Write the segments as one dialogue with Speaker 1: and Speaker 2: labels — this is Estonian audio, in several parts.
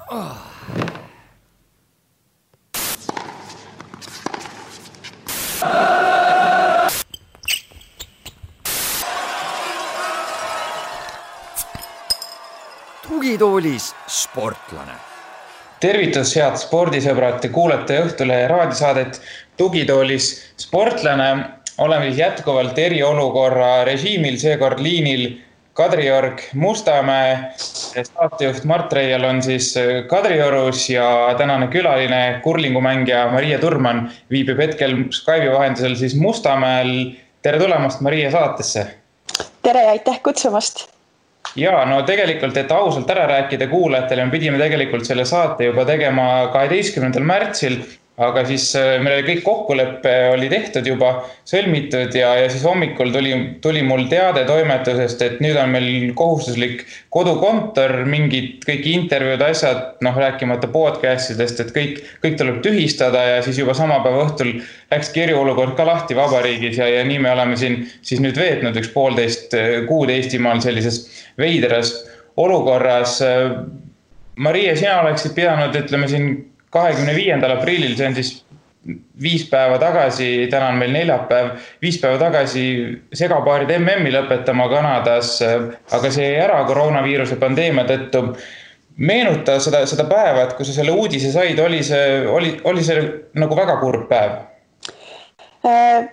Speaker 1: Tugitoolis sportlane.
Speaker 2: Tervitus, head spordisõbrad, te kuulete Õhtulehe raadiosaadet Tugitoolis sportlane. Oleme jätkuvalt eriolukorra režiimil, seekord liinil Kadriorg Mustamäe. Saatejuht Mart Reial on siis Kadriorus ja tänane külaline kurlingumängija Maria Turman viibib hetkel Skype'i vahendusel siis Mustamäel. Tere tulemast Maria saatesse.
Speaker 3: Tere ja aitäh kutsumast.
Speaker 2: Ja no tegelikult, et ausalt ära rääkida kuulajatele, me pidime tegelikult selle saate juba tegema 12. märtsil, aga siis meil kõik kokkuleppe oli tehtud juba, sõlmitud ja siis hommikul tuli mul teade toimetusest, et nüüd on meil kohustuslik kodukontor, mingid kõik intervjuud, asjad, rääkimata podcastidest, et kõik tuleb tühistada ja siis juba sama päeva õhtul läks eriolukord ka lahti vabariigis ja nii me oleme siin siis nüüd veetnud 1,5 kuud Eestimaal sellises veidras olukorras. Maria, sina oleksid pidanud, ütleme siin 25. aprillil, see on siis 5 päeva tagasi, täna on meil neljapäev, 5 päeva tagasi segapaarid MM-i lõpetama Kanadas, aga see jäi ära koroonaviiruse pandeemia tõttu. Meenuta seda päeva, et kui sa selle uudise said, oli see nagu väga kurb päev?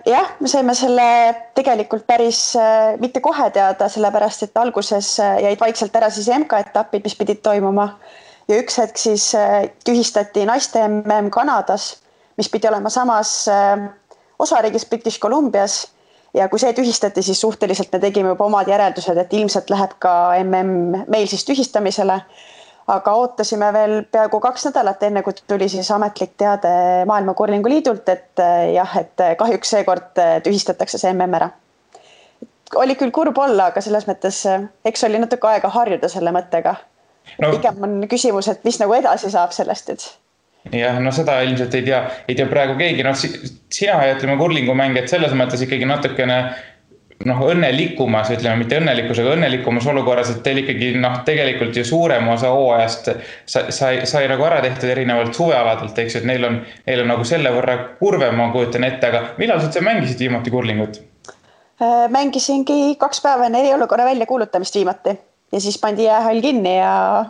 Speaker 3: Jah, me saime selle tegelikult päris mitte kohe teada, sellepärast et alguses jäid vaikselt ära siis MK-etapid, mis pidid toimuma. Ja üks hetk siis tühistati naiste MM Kanadas, mis pidi olema samas osariigis British Columbias. Ja kui see tühistati, siis suhteliselt me tegime juba omad järeldused, et ilmselt läheb ka MM meil siis tühistamisele. Aga ootasime veel peaaegu 2 nädalat enne, kui tuli siis ametlik teade Maailma Kurlingu Liidult, et kahjuks seekord tühistatakse see MM ära. Oli küll kurb olla, aga selles mõttes eks oli natuke aega harjuda selle mõttega. Pigem on küsimus, et mis nagu edasi saab sellest, et...
Speaker 2: Jah, seda ilmselt ei tea praegu keegi. Sina ja ütleme kurlingumängijad selles mõttes ikkagi natukene õnnelikumas, ütleme mitte õnnelikus, aga õnnelikumas olukorras, et teil ikkagi tegelikult ju suurem osa hooajast sai nagu ära tehtud erinevalt suvealadelt, eks, et neil on nagu selle võrra kurvem, ma kujutan ette, aga millal sa mängisid viimati kurlingut?
Speaker 3: Mängisingi 2 päeva enne eriolukorra välja kuulutamist viimati ja siis pandi jäähall kinni ja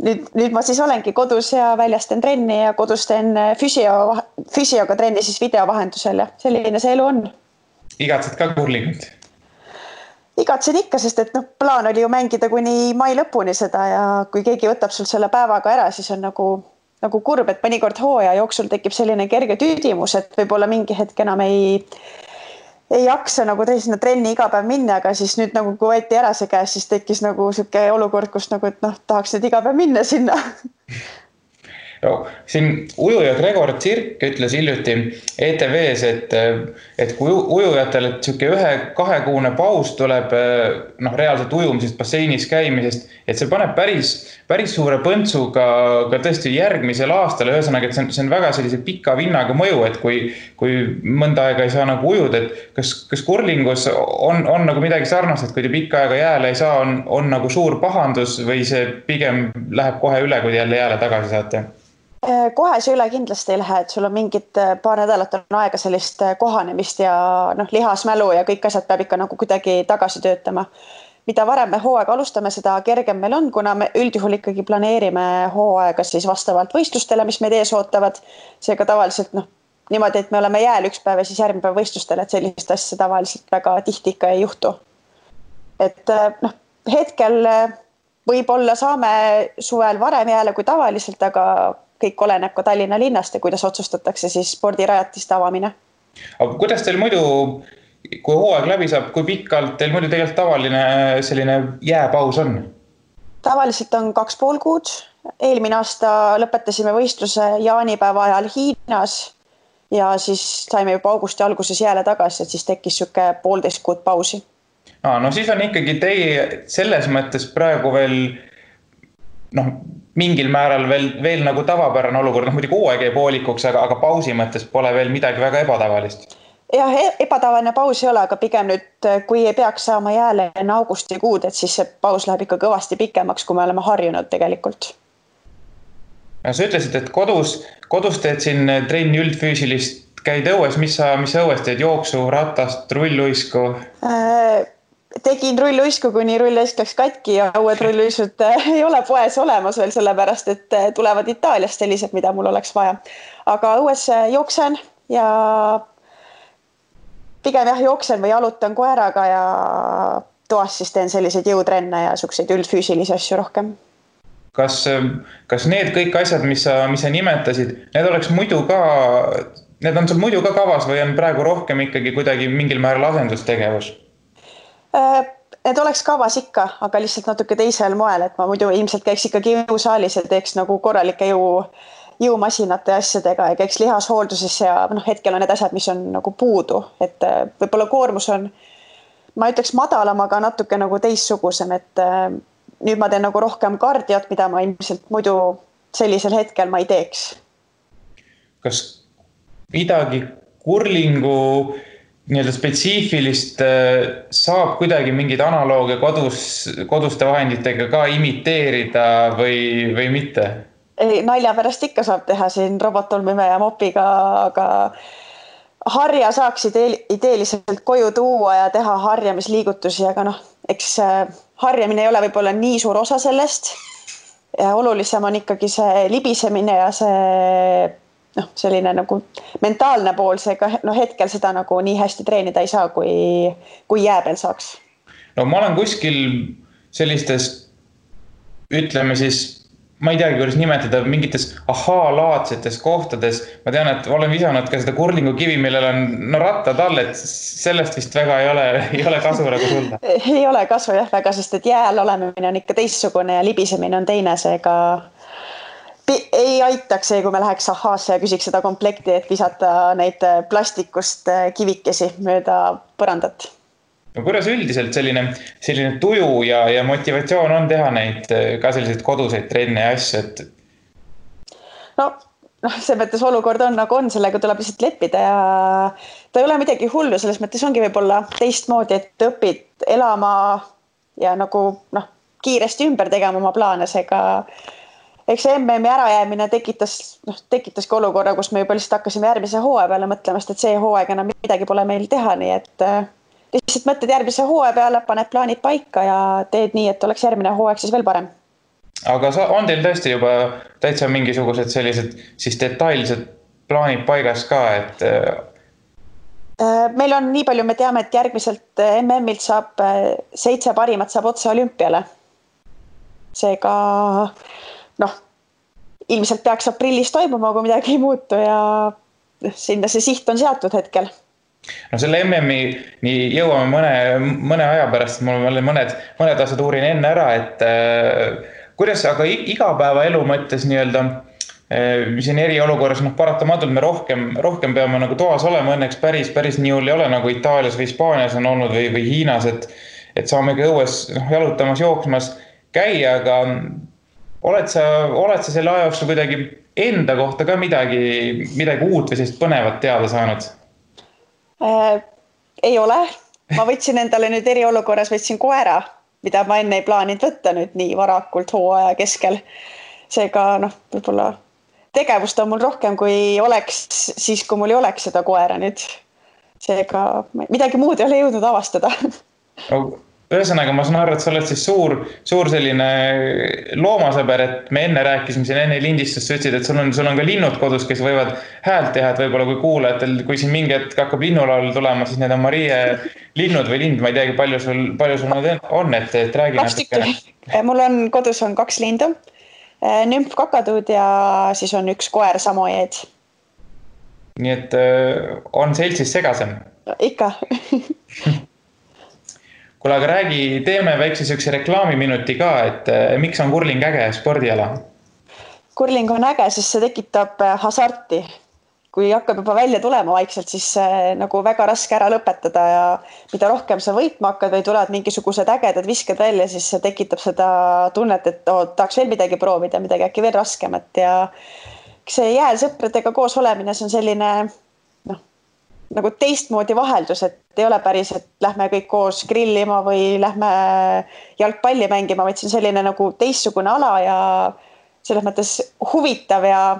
Speaker 3: nüüd ma siis olengi kodus ja väljas teen trenni ja kodus teen füsioga trenni siis videovahendusel ja selline see elu on.
Speaker 2: Igatsed ka kurlingut?
Speaker 3: Igatsen ikka, sest et plaan oli ju mängida kuni mai lõpuni seda ja kui keegi võtab sul selle päevaga ära, siis on nagu kurb, et mõnikord hooaja jooksul tekib selline kerge tüüdimus, et võib-olla mingi hetk enam ei jaksa nagu sinna trenni iga päev minna, aga siis nüüd nagu kui võeti ära see käes, siis tekkis nagu selline olukord, kus nagu, et tahaks nüüd iga päev minna sinna.
Speaker 2: Siin ujuja Gregor Tsirk ütles hiljuti ETV-s, et kui ujujatel 1-2 kuune paus tuleb reaalselt ujumisest, basseinis käimisest, et see paneb päris suure põntsu ka tõesti järgmisel aastal. Ühesõnaga, et see on väga sellise pika vinnaga mõju, et kui mõnda aega ei saa nagu ujuda, et kas kurlingus on nagu midagi sarnast, et kui te pikka aega jääle ei saa, on nagu suur pahandus või see pigem läheb kohe üle, kui te jälle jääle tagasi saate?
Speaker 3: Kohe see üle kindlasti ei lähe, et sul on mingid paar nädalat on aega sellist kohanemist ja lihasmälu ja kõik asjad peab ikka nagu kuidagi tagasi töötama. Mida varem me hooaega alustame, seda kergem meil on, kuna me üldjuhul ikkagi planeerime hooaega siis vastavalt võistlustele, mis meid ees ootavad. Seega tavaliselt niimoodi, et me oleme jääl üks päev ja siis järgmine päev võistlustele, et sellist asja tavaliselt väga tihti ikka ei juhtu. Et hetkel võib-olla saame suvel varem jääle kui tavaliselt, aga kõik oleneb ka Tallinna linnast ja kuidas otsustatakse siis spordirajatiste avamine.
Speaker 2: Aga kuidas teil muidu, kui hooaeg läbi saab, kui pikalt teil muidu tegelikult tavaline selline jääpaus on?
Speaker 3: Tavaliselt on 2,5 kuud. Eelmine aasta lõpetasime võistluse jaanipäeva ajal Hiinas ja siis saime juba augusti alguses jääle tagasi, et siis tekkis 1,5 kuud pausi.
Speaker 2: No siis on ikkagi teie selles mõttes praegu veel mingil määral veel nagu tavapärane olukord, muidugi hooaeg jäi poolikuks, aga pausi mõttes pole veel midagi väga ebatavalist.
Speaker 3: Jah, ebatavaline paus ei ole, aga pigem nüüd, kui ei peaks saama jääle enne augustikuud, et siis see paus läheb ikka kõvasti pikemaks, kui me oleme harjunud tegelikult.
Speaker 2: Sa ütlesid, et kodus teed siin trenni üldfüüsilist, käid õues, mis sa õues teed, jooksu, ratast, rulluisku?
Speaker 3: Tegin rulluisku, kuni rulluisk läks katki ja uued rulluisud ei ole poes olemas veel, sellepärast et tulevad Itaaliast sellised, mida mul oleks vaja. Aga õues jooksen ja pigem jooksen või jalutan koeraga ja toas siis teen selliseid jõutrenne ja selliseid üldfüüsilisi asju rohkem.
Speaker 2: Kas need kõik asjad, mis sa nimetasid, need on sul muidu ka kavas või on praegu rohkem ikkagi kuidagi mingil määral asendustegevus?
Speaker 3: Need oleks kavas ikka, aga lihtsalt natuke teisel moel, et ma muidu ilmselt käiks ikkagi jõusaalis ja teeks nagu korralike jõumasinate asjadega ja käiks lihashoolduses ja hetkel on need asjad, mis on nagu puudu, et võib-olla koormus on, ma ütleks madalam, aga natuke nagu teissugusem, et nüüd ma teen nagu rohkem kardiot, mida ma ilmselt muidu sellisel hetkel ma ei teeks.
Speaker 2: Kas midagi kurlingu nii-öelda spetsiifilist saab kuidagi mingid analoogia koduste vahenditega ka imiteerida või mitte?
Speaker 3: Nalja pärast ikka saab teha siin robottolmime ja mopiga, aga harja saaks ideeliselt koju tuua ja teha harjamisliigutusi, aga eks harjamine ei ole võib-olla nii suur osa sellest. Ja olulisem on ikkagi see libisemine ja see selline nagu mentaalne pool, seega hetkel seda nagu nii hästi treenida ei saa, kui jää peal saaks.
Speaker 2: No ma olen kuskil sellistes, ütleme siis, ma ei teagi, kuidas nimetada, mingites laadsetes kohtades. Ma tean, et olen visanud ka seda kurlingu kivi, millel on rattad all, et sellest vist väga ei ole kasu nagu sulda.
Speaker 3: Ei ole kasu jah väga, sest et jääl olemine on ikka teissugune ja libisemine on teine, seega ei aitaks see, kui me läheks ahhaasse ja küsiks seda komplekti, et visata neid plastikust kivikesi mööda põrandat.
Speaker 2: No kuidas üldiselt selline tuju ja motivatsioon on teha neid ka selliseid koduseid trenne ja asju, et?
Speaker 3: See mõttes olukord on nagu on, sellega tuleb lihtsalt leppida ja ta ei ole midagi hullu, selles mõttes ongi võib-olla teistmoodi, et õpid elama ja nagu kiiresti ümber tegema oma plaane, seega eks MM-i ärajäämine tekitaski olukorra, kus me juba lihtsalt hakkasime järgmise hooaja peale mõtlemast, et see hooaeg enam midagi pole meil teha, nii et lihtsalt mõtled järgmise hooaja peale, paned plaanid paika ja teed nii, et oleks järgmine hooaeg siis veel parem.
Speaker 2: Aga on teil tõesti juba täitsa mingisugused sellised siis detailsed plaanid paigas ka, et?
Speaker 3: Meil on nii palju, me teame, et järgmiselt MM-ilt saab 7 parimat saab otse olümpiale. Seega ilmselt peaks aprillis toimuma, kui midagi ei muutu ja sinna see siht on seatud hetkel.
Speaker 2: Selle MM-i jõuame mõne aja pärast, mul on mõned asjad uurin enne ära, et kuidas, aga igapäeva elu mõttes nii-öelda, siin eriolukorras paratamatult me rohkem peame nagu toas olema, õnneks päris nii hull ei ole nagu Itaalias või Hispaanias on olnud või Hiinas, et saamegi õues jalutamas, jooksmas käia, aga oled sa selle aja jooksul kuidagi enda kohta ka midagi uut või sellist põnevat teada saanud?
Speaker 3: Ei ole. Ma võtsin endale nüüd eriolukorras koera, mida ma enne ei plaaninud võtta nüüd nii varakult hooaja keskel. Seega võib-olla tegevust on mul rohkem, kui oleks siis, kui mul ei oleks seda koera nüüd. Seega midagi muud ei ole jõudnud avastada.
Speaker 2: Ühesõnaga, ma saan aru, et sa oled siis suur selline loomasõber, et me enne rääkisime siin enne lindistust, sa ütlesid, et sul on ka linnud kodus, kes võivad häält teha, et võib-olla kui kuulajatel, kui siin mingi hetk hakkab linnulaul tulema, siis need on Marie linnud või lind, ma ei teagi, palju sul nad on, et räägi natuke.
Speaker 3: Mul on kodus 2 lindu, nümf kakatuud ja siis on 1 koer samojeed.
Speaker 2: Nii et on seltsis segasem?
Speaker 3: Ikka.
Speaker 2: Kuule, aga teeme väikse sükse reklaamiminuti ka, et miks on kurling äge spordiala?
Speaker 3: Kurling on äge, sest see tekitab hasarti. Kui hakkab juba välja tulema vaikselt, siis nagu väga raske ära lõpetada ja mida rohkem sa võitma hakkad või tulevad mingisugused ägedad visked välja, siis see tekitab seda tunnet, et tahaks veel midagi proovida, midagi äkki veel raskemat ja see jääl sõpradega koos olemine, see on selline nagu teistmoodi vaheldus, et ei ole päris, et lähme kõik koos grillima või lähme jalgpalli mängima, vaid see on selline nagu teistsugune ala ja selles mõttes huvitav ja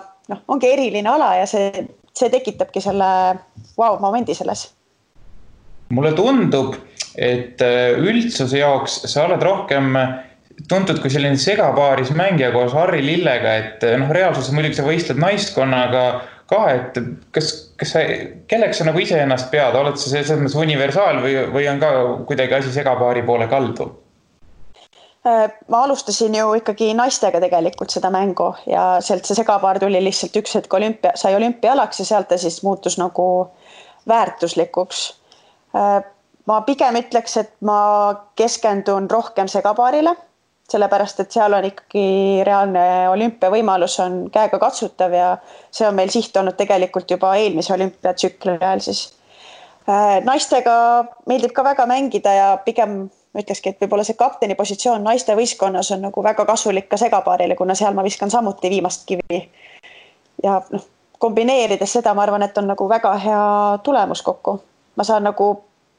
Speaker 3: ongi eriline ala ja see tekitabki selle wow-momendi selles.
Speaker 2: Mulle tundub, et üldsuse jaoks sa oled rohkem tuntud kui selline segapaaris mängija koos Harri Lillega, et reaalsuses muidugi sa võistled naiskonnaga ka, et kelleks sa nagu ise ennast pead, oled sa selles mõttes universaal või on ka kuidagi asi segapaari poole kaldu?
Speaker 3: Ma alustasin ju ikkagi naistega tegelikult seda mängu ja sealt see segapaar tuli lihtsalt üks hetk sai olümpialaks ja sealt ta siis muutus nagu väärtuslikuks. Ma pigem ütleks, et ma keskendun rohkem segapaarile, sellepärast, et seal on ikkagi reaalne olümpiavõimalus on käega katsutav ja see on meil siht olnud tegelikult juba eelmise olümpiatsükli ajal siis. Naistega meeldib ka väga mängida ja pigem ma ütlekski, et võib-olla see kapteni positsioon naiste võistkonnas on nagu väga kasulik ka segapaarile, kuna seal ma viskan samuti viimast kivi. Ja kombineerides seda, ma arvan, et on nagu väga hea tulemus kokku. Ma saan nagu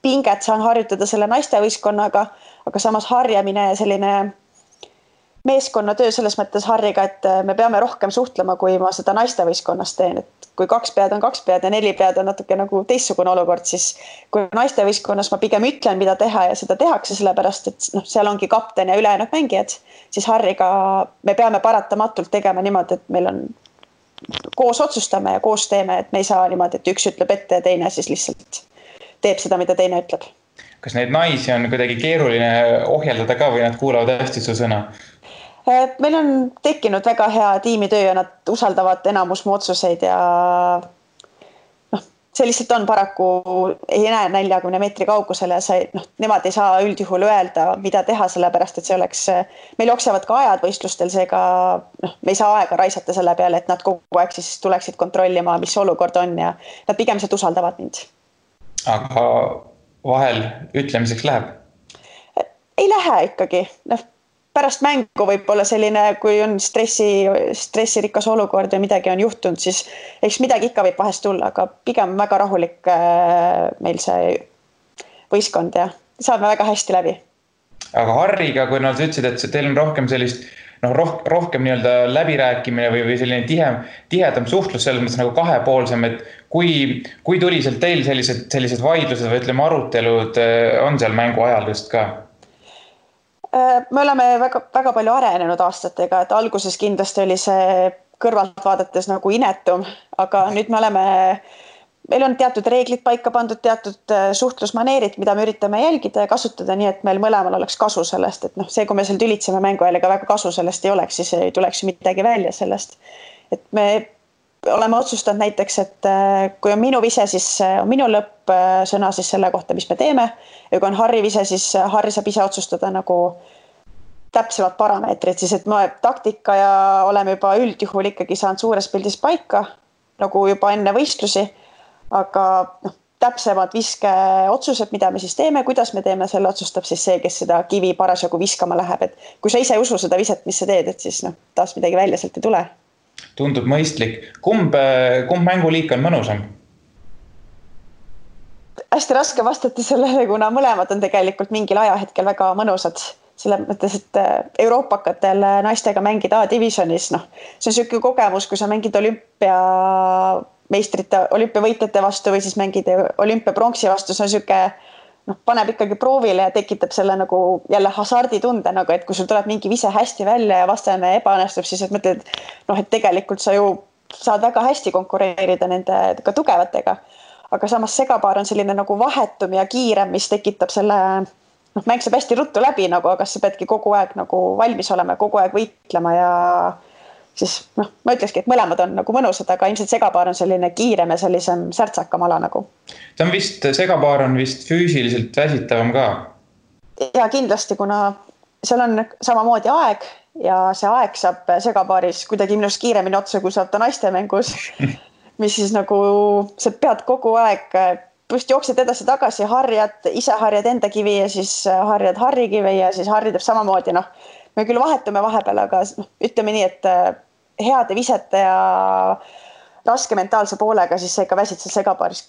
Speaker 3: pinget saan harjutada selle naiste võistkonnaga, aga samas harjamine ja selline meeskonnatöö selles mõttes Harriga, et me peame rohkem suhtlema, kui ma seda naiste võistkonnas teen. Et kui 2 pead on 2 pead ja 4 pead on natuke nagu teistsugune olukord, siis kui naiste võistkonnas ma pigem ütlen, mida teha ja seda tehakse, sellepärast, et seal ongi kapten ja ülejäänud mängijad, siis Harriga me peame paratamatult tegema niimoodi, et meil on koos otsustame ja koos teeme, et me ei saa niimoodi, et üks ütleb ette ja teine siis lihtsalt teeb seda, mida teine ütleb.
Speaker 2: Kas neid naisi on kuidagi keeruline ohjeldada ka või nad kuulavad hästi su sõna?
Speaker 3: Meil on tekkinud väga hea tiimitöö ja nad usaldavad enamus mu otsuseid ja see lihtsalt on paraku ei näe 40 meetri kaugusele ja nemad ei saa üldjuhul öelda, mida teha, sellepärast, et see oleks, meil jooksevad ka ajad võistlustel, seega me ei saa aega raisata selle peale, et nad kogu aeg siis tuleksid kontrollima, mis olukord on ja nad pigem sealt usaldavad mind. Aga
Speaker 2: vahel ütlemiseks läheb?
Speaker 3: Ei lähe ikkagi. Pärast mängu võib olla selline, kui on stressirikas olukord ja midagi on juhtunud, siis eks midagi ikka võib vahest tulla, aga pigem väga rahulik meil see võistkond ja saame väga hästi läbi.
Speaker 2: Aga Harriga, kui nad ütlesid, et teil on rohkem sellist, rohkem nii-öelda läbirääkimine või selline tihedam suhtlus selles mõttes nagu kahepoolsem, et kui tuliselt teil sellised vaidlused või ütleme arutelud on seal mängu ajal just ka?
Speaker 3: Me oleme väga palju arenenud aastatega, et alguses kindlasti oli see kõrvalt vaadates nagu inetum, aga nüüd meil on teatud reeglid paika pandud, teatud suhtlusmaneerid, mida me üritame jälgida ja kasutada nii, et meil mõlemal oleks kasu sellest, et see, kui me seal tülitseme mängu ajal, ega väga kasu sellest ei oleks, siis ei tuleks midagi välja sellest. Et me oleme otsustanud näiteks, et kui on minu vise, siis on minu lõppsõna siis selle kohta, mis me teeme. Ja kui on Harri vise, siis Harri saab ise otsustada nagu täpsemad parameetrid, siis et me taktika ja oleme juba üldjuhul ikkagi saanud suures pildis paika, nagu juba enne võistlusi, aga täpsemad viske otsused, mida me siis teeme, kuidas me teeme, selle otsustab siis see, kes seda kivi parasjagu viskama läheb. Et kui sa ise usu seda viset, mis sa teed, et siis taas midagi välja sealt ei tule.
Speaker 2: Tundub mõistlik. Kumb mänguliik on mõnusam?
Speaker 3: Hästi raske vastata sellele, kuna mõlemad on tegelikult mingil ajahetkel väga mõnusad. Selle mõttes, et euroopakatel naistega mängida A-divisionis, see on selline kogemus, kui sa mängid olümpiavõitjate vastu või siis mängid olümpiapronksi vastu, see on selline paneb ikkagi proovile ja tekitab selle nagu jälle hasarditunde, nagu, et kui sul tuleb mingi vise hästi välja ja vastane ebaõnnestub, siis et mõtled, et tegelikult sa ju saad väga hästi konkureerida nende ka tugevatega. Aga samas segapaar on selline nagu vahetum ja kiirem, mis tekitab selle, mäng saab hästi ruttu läbi, aga sa peadki kogu aeg nagu valmis olema, kogu aeg võitlema ja siis ma ütlekski, et mõlemad on nagu mõnusad, aga ilmselt segapaar on selline kiirem ja sellisem särtsakam ala nagu.
Speaker 2: Segapaar on vist füüsiliselt väsitavam ka?
Speaker 3: Ja kindlasti, kuna seal on samamoodi aeg ja see aeg saab segapaaris kuidagi minust kiiremini otsa, kui saab ta naiste mängus, mis siis nagu sa pead kogu aeg, just jooksed edasi tagasi, ise harjad enda kivi ja siis harjad Harri kivi ja siis Harri teeb samamoodi, me küll vahetume vahepeal, aga ütleme nii, et heade visete ja raske mentaalse poolega, siis sa ikka väsid seal segapaaris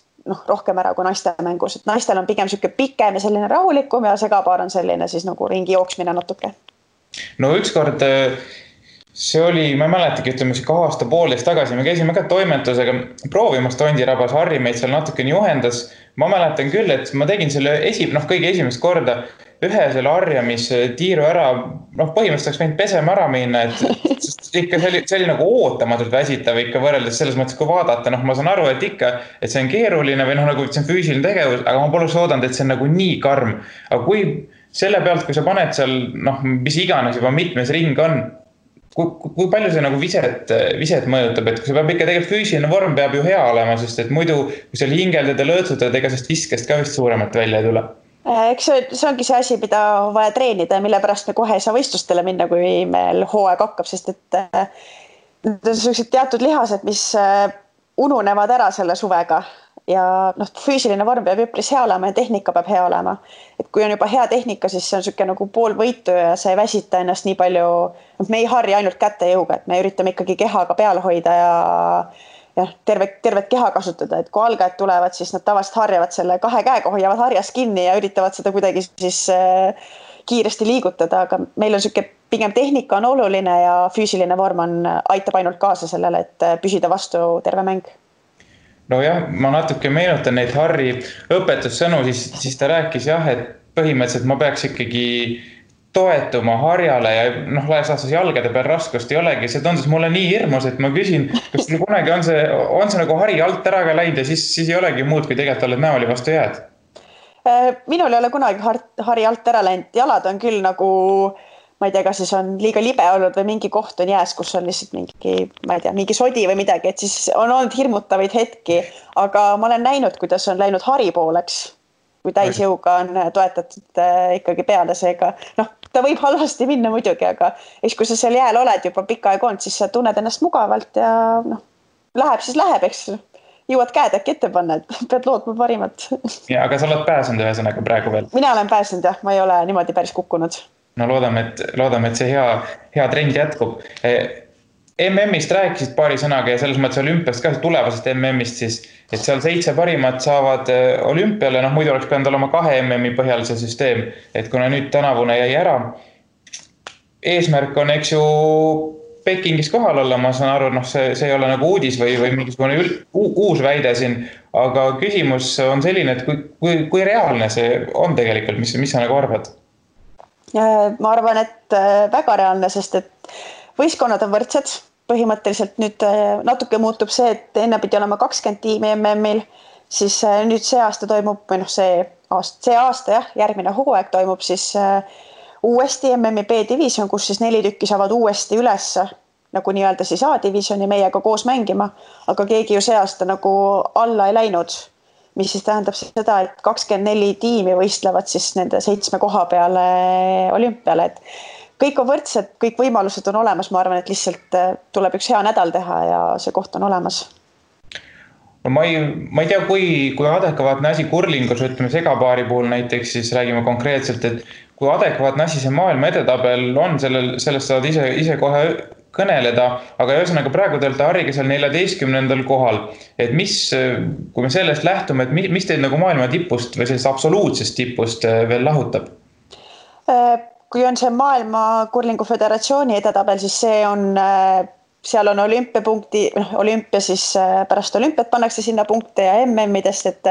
Speaker 3: rohkem ära kui naiste mängus. Et naistel on pigem selline pikem ja selline rahulikum ja segapaar on selline siis nagu ringi jooksmine natuke.
Speaker 2: No ükskord see oli, ma ei mäletagi, ütleme aasta poolteist tagasi, me käisime ka toimetusega proovimas Tondirabas, Harri meid seal natukene juhendas. Ma mäletan küll, et ma tegin selle kõige esimest korda ühe selle harjamistiiru ära, põhimõtteliselt oleks võinud pesema ära minna, et ikka see oli nagu ootamatult väsitav ikka võrreldes selles mõttes, kui vaadata, ma saan aru, et ikka, et see on keeruline või nagu see on füüsiline tegevus, aga ma poleks oodanud, et see on nagu nii karm. Aga kui selle pealt, kui sa paned seal, mis iganes juba mitmes ring on, kui palju see nagu viset mõjutab, et kui see peab ikka tegelikult füüsiline vorm peab ju hea olema, sest et muidu, kui seal hingeldad ja lõõtsutad, ega sest viskest ka vist suuremat välja ei tule.
Speaker 3: Eks see ongi see asi, mida on vaja treenida ja mille pärast me kohe ei saa võistlustele minna, kui meil hooaeg hakkab, sest et need on sellised teatud lihased, mis ununevad ära selle suvega. Ja füüsiline vorm peab üpris hea olema ja tehnika peab hea olema. Et kui on juba hea tehnika, siis see on selline nagu pool võitu ja see ei väsita ennast nii palju. Me ei harja ainult käte jõuga, et me üritame ikkagi kehaga peal hoida ja tervet keha kasutada. Et kui algajad tulevad, siis nad tavaliselt harjavad selle kahe käega, hoiavad harjas kinni ja üritavad seda kuidagi siis kiiresti liigutada. Aga meil on selline pigem tehnika on oluline ja füüsiline vorm aitab ainult kaasa sellele, et püsida vastu terve mäng.
Speaker 2: No jah, ma natuke meenutan neid Harri õpetussõnu, siis ta rääkis jah, et põhimõtteliselt ma peaks ikkagi toetuma harjale ja laias laastus jalgade peal raskust ei olegi. See tundus mulle nii hirmus, et ma küsin, kas kunagi on see nagu hari alt ära ka läinud ja siis ei olegi muud, kui tegelikult oled näoli vastu jääd?
Speaker 3: Minul ei ole kunagi hari alt ära läinud. Jalad on küll nagu, ma ei tea, kas siis on liiga libe olnud või mingi koht on jääs, kus on lihtsalt mingi sodi või midagi, et siis on olnud hirmutavaid hetki, aga ma olen näinud, kuidas on läinud hari pooleks, kui täisjõuga on toetatud ikkagi peale seega. Ta võib halvasti minna muidugi, aga kui sa seal jääl oled juba pikka aega olnud, siis sa tunned ennast mugavalt ja läheb, eks jõuad käed äkki ette panna, et pead lootma parimat.
Speaker 2: Ja, aga sa oled pääsenud ühesõnaga praegu veel?
Speaker 3: Mina olen pääsenud jah, ma ei ole niimoodi päris kukkunud.
Speaker 2: No loodame, et see hea trend jätkub. MM-ist rääkisid paari sõnaga ja selles mõttes olümpiast ka tulevasest MM-ist siis, et seal 7 parimat saavad olümpiale, muidu oleks pidanud olema 2 MM-i põhjal see süsteem, et kuna nüüd tänavune jäi ära. Eesmärk on, eks ju, Pekingis kohal olla, ma saan aru, see ei ole nagu uudis või mingisugune uus väide siin, aga küsimus on selline, et kui reaalne see on tegelikult, mis sa nagu arvad?
Speaker 3: Ma arvan, et väga reaalne, sest et võistkonnad on võrdsed. Põhimõtteliselt nüüd natuke muutub see, et enne pidi olema 20 tiimi MM-il, siis nüüd see aasta toimub, või see aasta jah, järgmine hooaeg toimub siis uuesti MM-i B-division, kus siis 4 tükki saavad uuesti üles nagu nii-öelda siis A-divisioni meiega koos mängima, aga keegi ju see aasta nagu alla ei läinud, mis siis tähendab seda, et 24 tiimi võistlevad siis nende 7 koha peale olümpiale, et kõik on võrdsed, kõik võimalused on olemas, ma arvan, et lihtsalt tuleb üks hea nädal teha ja see koht on olemas.
Speaker 2: Ma ei tea, kui adekvaatne asi kurlingus, ütleme segapaari puhul näiteks, siis räägime konkreetselt, et kui adekvaatne asi see maailma edetabel on, sellest saad ise kohe kõneleda, aga ühesõnaga praegu te olete Harriga seal 14. kohal, et kui me sellest lähtume, et mis teid nagu maailma tipust või sellest absoluutsest tipust veel lahutab?
Speaker 3: Kui on see maailma kurlingu föderatsiooni edetabel, siis seal on olümpia siis pärast olümpiat pannakse sinna punkte ja MM-idest, et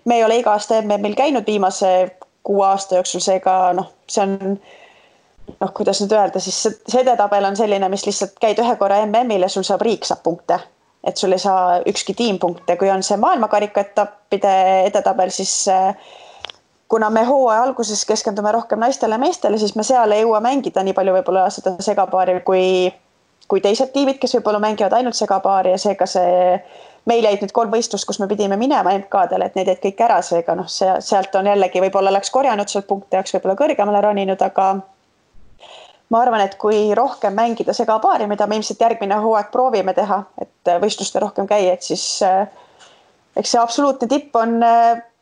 Speaker 3: me ei ole iga aasta MM-il käinud viimase 6 aasta jooksul, seega see on kuidas nüüd öelda, siis see edetabel on selline, mis lihtsalt käid ühe korra MM-il ja sul riik saab punkte, et sul ei saa ükski tiim punkte. Kui on see maailmakarika etappide edetabel, siis kuna me hooaja alguses keskendume rohkem naistele ja meestele, siis me seal ei jõua mängida nii palju võib-olla seda segapaari kui teised tiimid, kes võib-olla mängivad ainult segapaari ja seega meil jäid nüüd 3 võistlust, kus me pidime minema MK-dele, et need jäid kõik ära, seega sealt on jällegi võib-olla oleks korjanud sealt punkte, oleks võib-olla kõrgemale roninud, aga ma arvan, et kui rohkem mängida segapaari, mida me ilmselt järgmine hooaeg proovime teha, et võistluste rohkem käia, et siis eks see absoluutne tipp on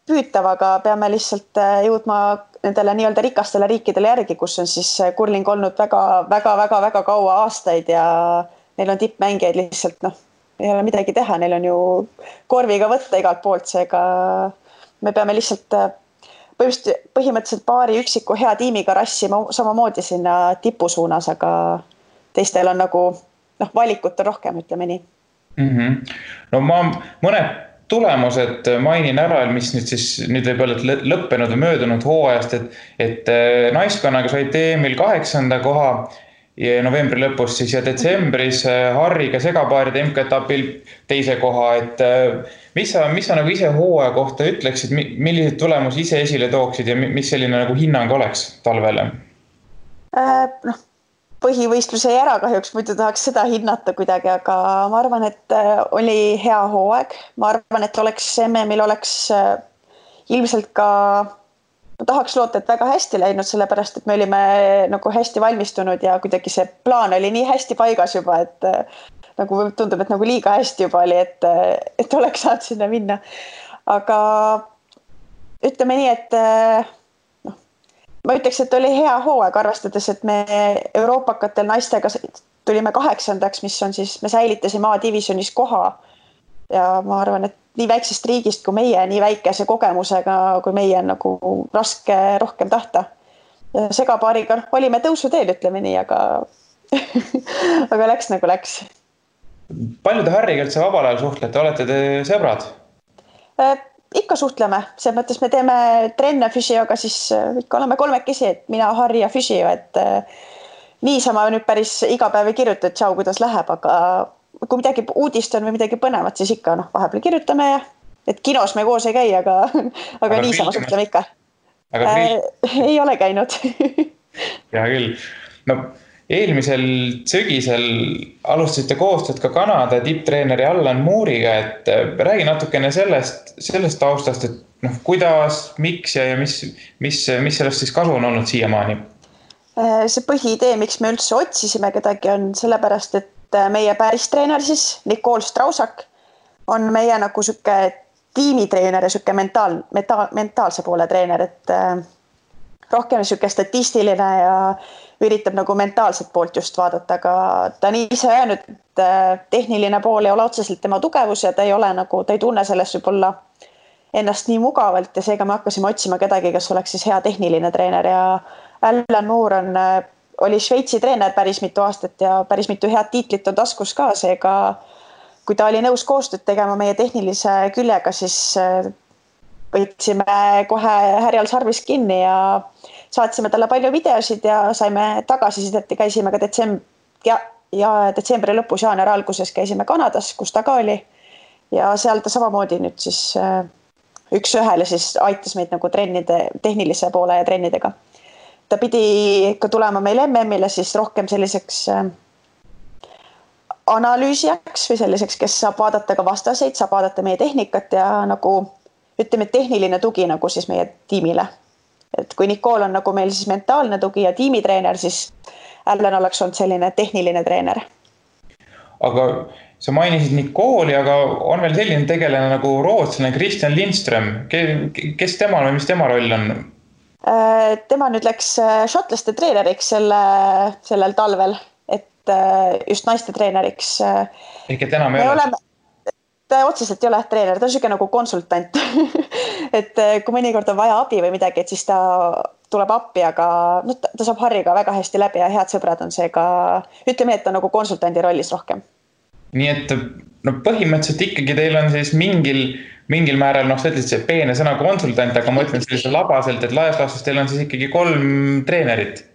Speaker 3: püütav, aga peame lihtsalt jõudma nendele nii-öelda rikastele riikidele järgi, kus on siis kurling olnud väga kaua aastaid ja neil on tippmängijaid lihtsalt, ei ole midagi teha, neil on ju korviga võtta igalt poolt, seega me peame lihtsalt põhimõtteliselt paari üksiku hea tiimiga rassima samamoodi sinna tipu suunas, aga teistel on nagu valikut on rohkem, ütleme nii.
Speaker 2: No ma mõned tulemused mainin ära, mis nüüd võib olla lõppenud või möödunud hooajast, et naiskonnaga said EM-il 8. koha ja novembri lõpus siis ja detsembris Harriga segapaaride MK-etapil 2. koha, et mis sa nagu ise hooaja kohta ütleksid, milliseid tulemusi ise esile tooksid ja mis selline nagu hinnang oleks talvele?
Speaker 3: Põhivõistluse jäi ära kahjuks, muidu tahaks seda hinnata kuidagi, aga ma arvan, et oli hea hooaeg. Ma arvan, et MM-il oleks ilmselt ka, ma tahaks loota, et väga hästi läinud, sellepärast, et me olime nagu hästi valmistunud ja kuidagi see plaan oli nii hästi paigas juba, et nagu tundub, et nagu liiga hästi juba oli, et oleks saanud sinna minna. Aga ütleme nii, et ma ütleks, et oli hea hooaeg, arvestades, et me euroopakatel naistega tulime 8., mis on siis, me säilitasime A-divisionis koha. Ja ma arvan, et nii väiksest riigist kui meie, nii väikese kogemusega kui meie on nagu raske rohkem tahta. Ja segapaariga olime tõusuteel, ütleme nii, aga, aga läks nagu läks.
Speaker 2: Palju te Harriga üldse vabal ajal suhtlete? Olete te sõbrad?
Speaker 3: Ikka suhtleme, see mõttes me teeme trenne füsioga, siis ikka oleme kolmekesi, et mina, Harri ja füsio, et niisama nüüd päris iga päev ei kirjuta, et tšau, kuidas läheb, aga kui midagi uudist on või midagi põnevat, siis ikka vahepeal kirjutame ja et kinos me koos ei käi, aga niisama suhtleme ikka. Ei ole käinud.
Speaker 2: Hea küll. No eelmisel sügisel alustasite koostööd ka Kanada tipptreeneri Allan Moore'iga, et räägi natukene sellest taustast, et kuidas, miks ja mis sellest siis kasu on olnud siiamaani?
Speaker 3: See põhiidee, miks me üldse otsisime kedagi, on sellepärast, et meie päris treener siis, Nicole Strausak, on meie nagu süke tiimitreener ja süke mentaalse poole treener, et rohkem süke statistiline ja üritab nagu mentaalset poolt just vaadata, aga ta on ise öelnud, et tehniline pool ei ole otseselt tema tugevus ja ta ei tunne sellest võib-olla ennast nii mugavalt ja seega me hakkasime otsima kedagi, kes oleks siis hea tehniline treener ja Allan Moore oli Šveitsi treener päris mitu aastat ja päris mitu head tiitlit on taskus ka, seega kui ta oli nõus koostööd tegema meie tehnilise küljega, siis võtsime kohe härjal sarvis kinni ja saatsime talle palju videosid ja saime tagasisidet ja käisime ka detsembri lõpus, jaanuari alguses käisime Kanadas, kus ta ka oli ja seal ta samamoodi nüüd siis üks-ühele siis aitas meid nagu tehnilise poole ja trennidega. Ta pidi ikka tulema meil MM-ile siis rohkem selliseks analüüsijaks või selliseks, kes saab vaadata ka vastaseid, saab vaadata meie tehnikat ja nagu ütleme tehniline tugi nagu siis meie tiimile. Et kui Nicole on nagu meil siis mentaalne tugi ja tiimitreener, siis Allan oleks olnud selline tehniline treener.
Speaker 2: Aga sa mainisid Nicole'i, aga on veel selline tegelane nagu rootslane Christian Lindström. Kes temal või mis tema roll on?
Speaker 3: Tema nüüd läks šotlaste treeneriks sellel talvel, et just naiste treeneriks.
Speaker 2: Ehk et enam ei ole?
Speaker 3: Ta otseselt ei ole treener, ta on selline nagu konsultant. Et kui mõnikord on vaja abi või midagi, et siis ta tuleb appi, aga ta saab Harriga väga hästi läbi ja head sõbrad on seega, ütleme, et ta nagu konsultandi rollis rohkem.
Speaker 2: Nii et põhimõtteliselt ikkagi teil on siis mingil määral, sa ütlesid see peene sõna konsultant, aga ma ütlen sellise labaselt, et laias laastus teil on siis ikkagi 3 treenerit.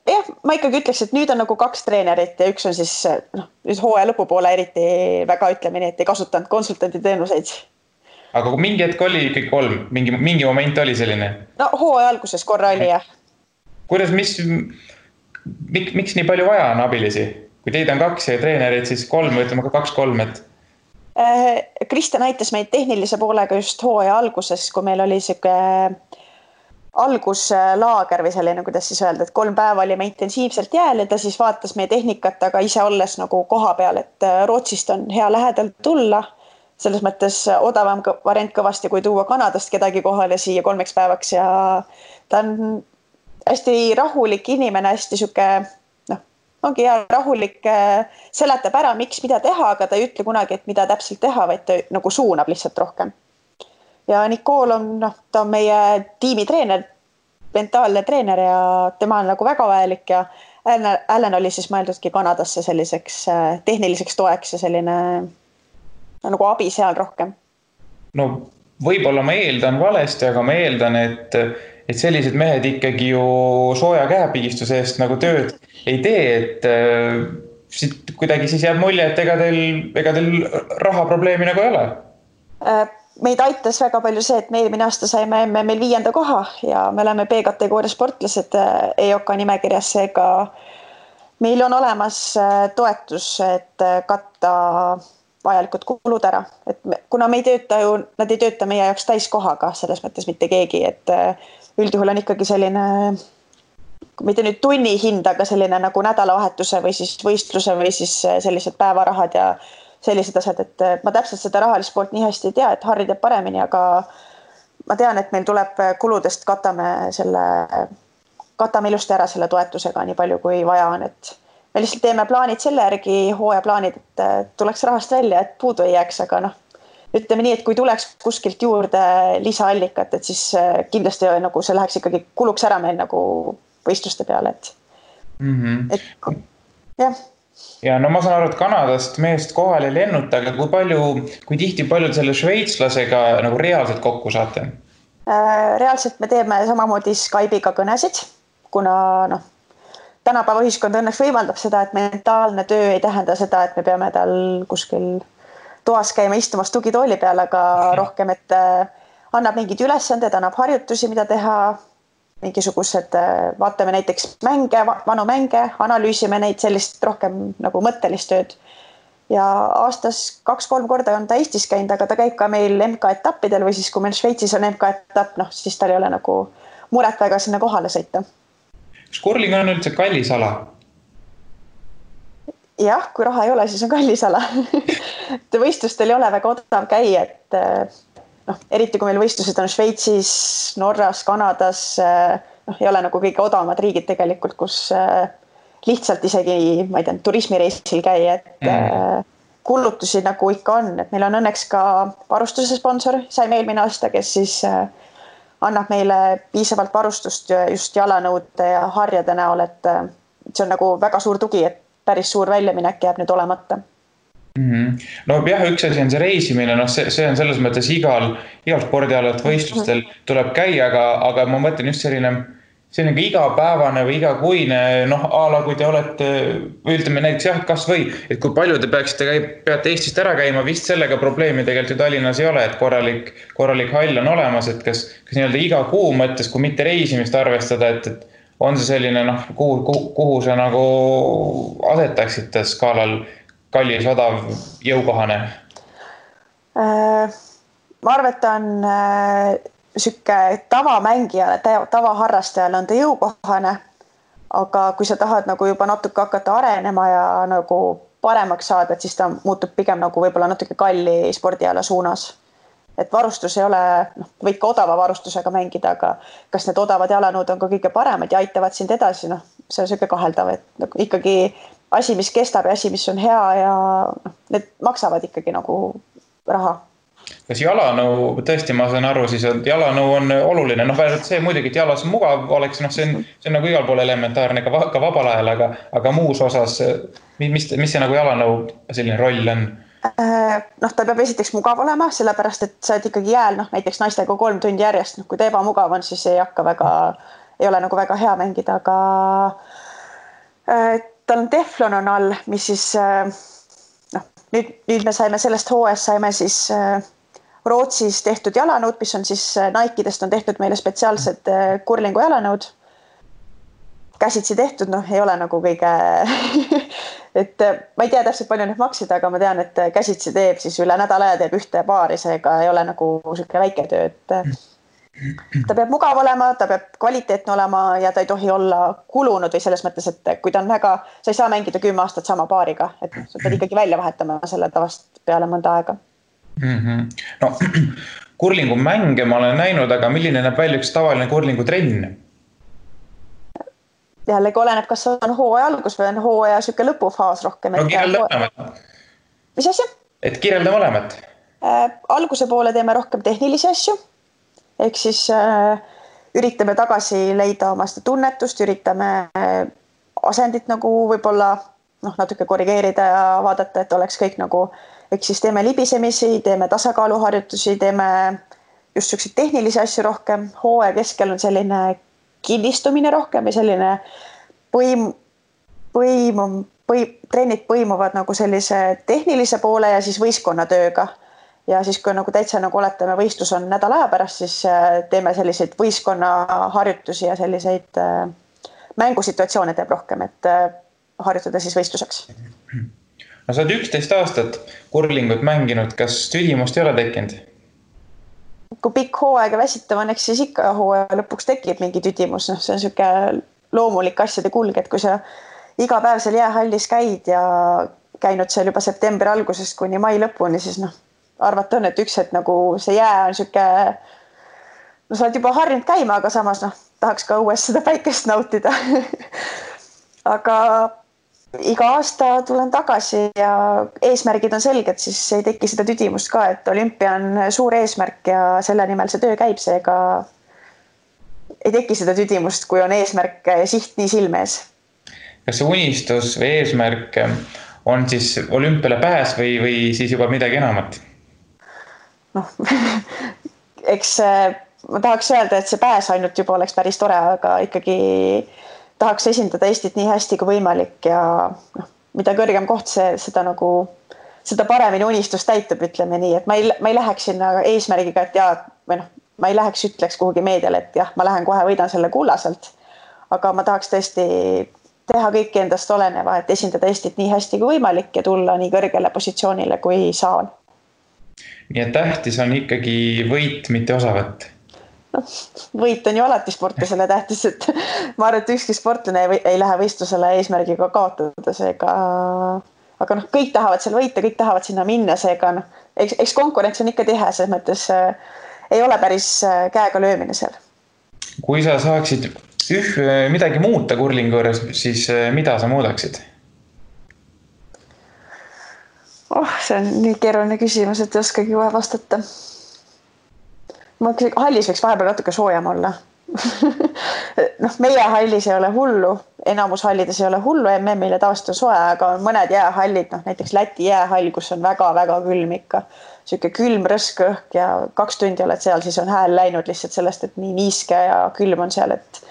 Speaker 3: Jah, ma ikkagi ütleks, et nüüd on nagu 2 treenerit ja üks on siis nüüd hooaja lõpupoole eriti väga ütleme nii, et ei kasutanud konsultanti teenuseid.
Speaker 2: Aga mingi hetk oli ikkagi 3, mingi moment oli selline?
Speaker 3: No hooaja alguses korra oli jah.
Speaker 2: Kuidas, miks nii palju vaja on abilisi? Kui teid on 2 ja treenerid, siis 3, ütleme ka 2-3, et...
Speaker 3: Kristjan aitas meid tehnilise poolega just hooaja alguses, kui meil oli siuke alguslaager või selline, kuidas siis öelda, et 3 päeva olime intensiivselt jääl ja ta siis vaatas meie tehnikat, aga ise olles nagu koha peal, et Rootsist on hea lähedalt tulla. Selles mõttes odavam variant kõvasti, kui tuua Kanadast kedagi kohale siia 3 päevaks ja ta on hästi rahulik inimene, hästi siuke, ongi hea rahulik, seletab ära, miks mida teha, aga ta ei ütle kunagi, et mida täpselt teha, vaid ta nagu suunab lihtsalt rohkem. Ja Nicole on, ta on meie tiimitreener, mentaalne treener ja tema on nagu väga vajalik ja Allen oli siis mõeldudki Kanadasse selliseks tehniliseks toeks ja selline nagu abi seal rohkem.
Speaker 2: No võib-olla ma eeldan valesti, aga ma eeldan, et sellised mehed ikkagi ju sooja käepigistuse eest nagu tööd ei tee, et kuidagi siis jääb mulje, et ega teil rahaprobleemi nagu ei ole.
Speaker 3: Meid aitas väga palju see, et me eelmine aasta saime meil 5. koha ja me oleme B-kategooria sportlased EOK nimekirjas, seega meil on olemas toetus, et katta vajalikud kulud ära. Et kuna me ei tööta ju, nad ei tööta meie jaoks täiskohaga, selles mõttes mitte keegi, et üldjuhul on ikkagi selline, mitte nüüd tunni hind, aga selline nagu nädalavahetuse või siis võistluse või siis sellised päevarahad ja sellised asjad, et ma täpselt seda rahalist poolt nii hästi ei tea, et Harri teeb paremini, aga ma tean, et meil tuleb kuludest katame ilusti ära selle toetusega nii palju, kui vaja on, et me lihtsalt teeme plaanid selle järgi, hooajaplaanid, et tuleks rahast välja, et puudu ei jääks, aga ütleme nii, et kui tuleks kuskilt juurde lisaallikat, et siis kindlasti nagu see läheks ikkagi kuluks ära meil nagu võistluste peale, et jah.
Speaker 2: Ja no ma saan aru, et Kanadast meest kohal ei lennuta, aga kui tihti paljud selle šveitslasega nagu reaalselt kokku saate?
Speaker 3: Reaalselt me teeme samamoodi Skype'iga kõnesid, kuna tänapäeva ühiskond õnneks võimaldab seda, et mentaalne töö ei tähenda seda, et me peame tal kuskil toas käima istumas tugitooli peal, aga rohkem, et annab mingid ülesanded, annab harjutusi, mida teha, mingisugused, vaatame näiteks mänge, vanu mänge, analüüsime neid sellist rohkem nagu mõttelist tööd. Ja aastas 2-3 korda on ta Eestis käinud, aga ta käib ka meil MK-etappidel või siis kui meil Šveitsis on MK-etapp, siis tal ei ole nagu muret väga sinna kohale sõita.
Speaker 2: Kas kurling on üldse kallis ala?
Speaker 3: Jah, kui raha ei ole, siis on kallis ala. Võistlustel ei ole väga odav käia, et eriti kui meil võistlused on Šveitsis, Norras, Kanadas, ei ole nagu kõige odavamad riigid tegelikult, kus lihtsalt isegi, ma ei tea, turismireisil käia, et kulutusi nagu ikka on, et meil on õnneks ka varustuse sponsor, saime eelmine aasta, kes siis annab meile piisavalt varustust just jalanõude ja harjade näol, et see on nagu väga suur tugi, et päris suur väljaminek jääb nüüd olemata.
Speaker 2: No jah, üks asi on see reisimine, see on selles mõttes igal spordialalt võistlustel tuleb käia, aga ma mõtlen just selline igapäevane või igakuine, ala kui te olete, ütleme näiteks jah, kas või, et kui palju te peate Eestist ära käima, vist sellega probleemi tegelikult ju Tallinnas ei ole, et korralik hall on olemas, et kas nii-öelda iga kuu mõttes, kui mitte reisimist arvestada, et on see selline, kuhu sa nagu asetaksite skaalal kallis, odav, jõukohane?
Speaker 3: Ma arvan, et ta on sükke tavamängijale, tavaharrastajale on ta jõukohane, aga kui sa tahad nagu juba natuke hakata arenema ja nagu paremaks saada, et siis ta muutub pigem nagu võib-olla natuke kalli spordiala suunas. Et varustus ei ole, võid ka odava varustusega mängida, aga kas need odavad jalanõud on ka kõige paremad ja aitavad sind edasi, see on sükke kaheldav, et ikkagi asi, mis kestab ja asi, mis on hea ja need maksavad ikkagi nagu raha.
Speaker 2: Kas jalanõu, tõesti ma saan aru, siis jalanõu on oluline, vähemalt see muidugi, et jalas mugav oleks, see on nagu igal pool elementaarne ka vabal ajal, aga muus osas, mis see nagu jalanõu selline roll on?
Speaker 3: Ta peab esiteks mugav olema, sellepärast, et sa oled ikkagi jääl, näiteks naistega 3 tundi järjest, kui ta ebamugav on, siis ei ole nagu väga hea mängida, aga tal on teflon on all, mis siis, nüüd me saime sellest hooajast, saime siis Rootsis tehtud jalanõud, mis on siis Nike'dest on tehtud meile spetsiaalsed kurlingu jalanõud. Käsitsi tehtud, ei ole nagu kõige, et ma ei tea täpselt palju need maksid, aga ma tean, et käsitsi teeb siis üle nädala aja teeb ühte paari, seega ei ole nagu selline väike töö, et ta peab mugav olema, ta peab kvaliteetne olema ja ta ei tohi olla kulunud või selles mõttes, et kui ta on sa ei saa mängida 10 aastat sama paariga, et sa pead ikkagi välja vahetama selle tavast peale mõnda aega.
Speaker 2: Kurlingu mänge ma olen näinud, aga milline näeb välja üks tavaline kurlingu trenn?
Speaker 3: Jällegi oleneb, kas on hooaja algus või on hooaja süke lõpufaas rohkem.
Speaker 2: Kirjelda mõlemat.
Speaker 3: Mis asja?
Speaker 2: Et kirjelda mõlemat.
Speaker 3: Alguse poole teeme rohkem tehnilisi asju. Ehk siis üritame tagasi leida oma seda tunnetust, üritame asendit nagu võib-olla natuke korrigeerida ja vaadata, et oleks kõik nagu, ehk siis teeme libisemisi, teeme tasakaaluharjutusi, teeme just selliseid tehnilisi asju rohkem. Hooaja keskel on selline kinnistumine rohkem ja selline trennid põimuvad nagu sellise tehnilise poole ja siis võistkonnatööga. Ja siis kui nagu täitsa nagu oletame võistlus on nädala aja pärast, siis teeme selliseid võistkonnaharjutusi ja selliseid mängusituatsioone teeb rohkem, et harjutada siis võistluseks.
Speaker 2: No sa oled 11 aastat kurlingut mänginud, kas tüdimust ei ole tekkinud?
Speaker 3: Kui pikk hooaega väsitav on, eks siis ikka hooaja lõpuks tekib mingi tüdimus. See on selline loomulik asjade kulg, et kui sa iga päev seal jäähallis käid ja käinud seal juba septembri algusest kuni mai lõpuni, siis arvata on, et üks hetk nagu see jää on selline, sa oled juba harjunud käima, aga samas tahaks ka õues seda päikest nautida. Aga iga aasta tulen tagasi ja eesmärgid on selged, siis ei teki seda tüdimust ka, et olümpia on suur eesmärk ja selle nimel see töö käib, seega ei teki seda tüdimust, kui on eesmärk ja siht nii silme ees.
Speaker 2: Kas see unistus või eesmärk on siis olümpiale pääs või siis juba midagi enamat?
Speaker 3: Eks ma tahaks öelda, et see pääs ainult juba oleks päris tore, aga ikkagi tahaks esindada Eestit nii hästi kui võimalik ja mida kõrgem koht seda paremini unistus täitub, ütleme nii, et ma ei läheks sinna eesmärgiga, et ma ei läheks ütleks kuhugi meediale, et jah, ma lähen kohe võidan selle kullaselt, aga ma tahaks tõesti teha kõiki endast oleneva, et esindada Eestit nii hästi kui võimalik ja tulla nii kõrgele positsioonile, kui saan.
Speaker 2: Nii et tähtis on ikkagi võit, mitte osavõtt.
Speaker 3: Võit on ju alati sportlasele tähtis, et ma arvan, et ükski sportlane ei lähe võistlusele eesmärgiga kaotada, seega, aga kõik tahavad seal võita, kõik tahavad sinna minna, seega eks konkurents on ikka tihe, selles mõttes ei ole päris käega löömine seal.
Speaker 2: Kui sa saaksid midagi muuta kurlingu juures, siis mida sa muudaksid?
Speaker 3: See on nii keeruline küsimus, et ei oskagi kohe vastata. Hallis võiks vahepeal natuke soojem olla. Meie hallis ei ole hullu, enamus hallides ei ole hullu, MM-ile tavaliselt on soe, aga on mõned jäähallid, näiteks Läti jäähall, kus on väga-väga külm ikka. Selline külm rõsk õhk ja 2 tundi oled seal, siis on hääl läinud lihtsalt sellest, et nii niiske ja külm on seal, et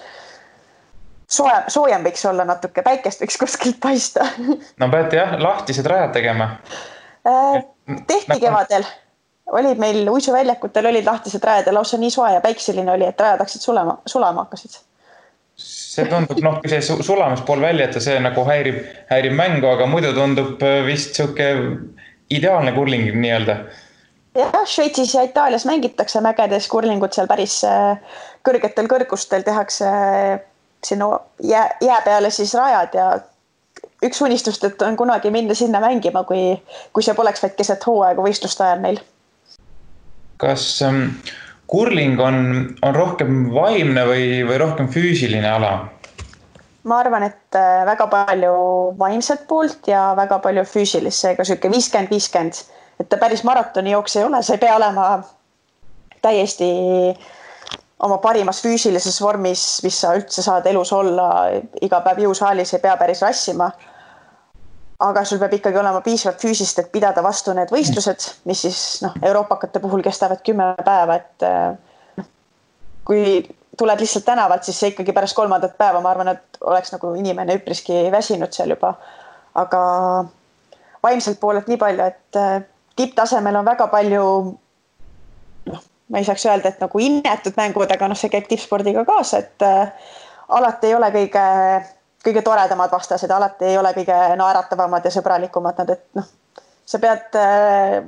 Speaker 3: soojem võiks olla natuke, päikest võiks kuskilt paista.
Speaker 2: No peate jah, lahtised rajad tegema.
Speaker 3: Tehti kevadel. Olid meil uisuväljakutel olid lahtised rajad ja lausa nii soe ja päikseline oli, et rajad hakkasid sulama hakkasid.
Speaker 2: See tundub, kui see sulamispool välja, et see nagu häirib mängu, aga muidu tundub vist siuke ideaalne kurling nii-öelda.
Speaker 3: Jah, Šveitsis ja Itaalias mängitakse mägedes kurlingut seal päris kõrgetel kõrgustel tehakse sinna jää peale siis rajad ja üks unistust, et on kunagi minna sinna mängima, kui see poleks vaid keset hooaega võistluste ajal meil.
Speaker 2: Kas kurling on rohkem vaimne või rohkem füüsiline ala?
Speaker 3: Ma arvan, et väga palju vaimset poolt ja väga palju füüsilist, seega selline 50-50, et ta päris maratoni jooks ei ole, sa ei pea olema täiesti oma parimas füüsilises vormis, mis sa üldse saad elus olla, iga päev jõusaalis ei pea päris rassima. Aga sul peab ikkagi olema piisavalt füüsist, et pidada vastu need võistlused, mis siis euroopakate puhul kestavad 10 päeva, et kui tuled lihtsalt tänavalt, siis see ikkagi pärast 3. päeva, ma arvan, et oleks nagu inimene üpriski väsinud seal juba. Aga vaimselt poolelt nii palju, et tipptasemel on väga palju, ma ei saaks öelda, et nagu innetud mängud, aga see käib tippspordiga kaasa, et alati ei ole kõige toredamad vastased, alati ei ole kõige naeratavamad ja sõbralikumad nad, et sa pead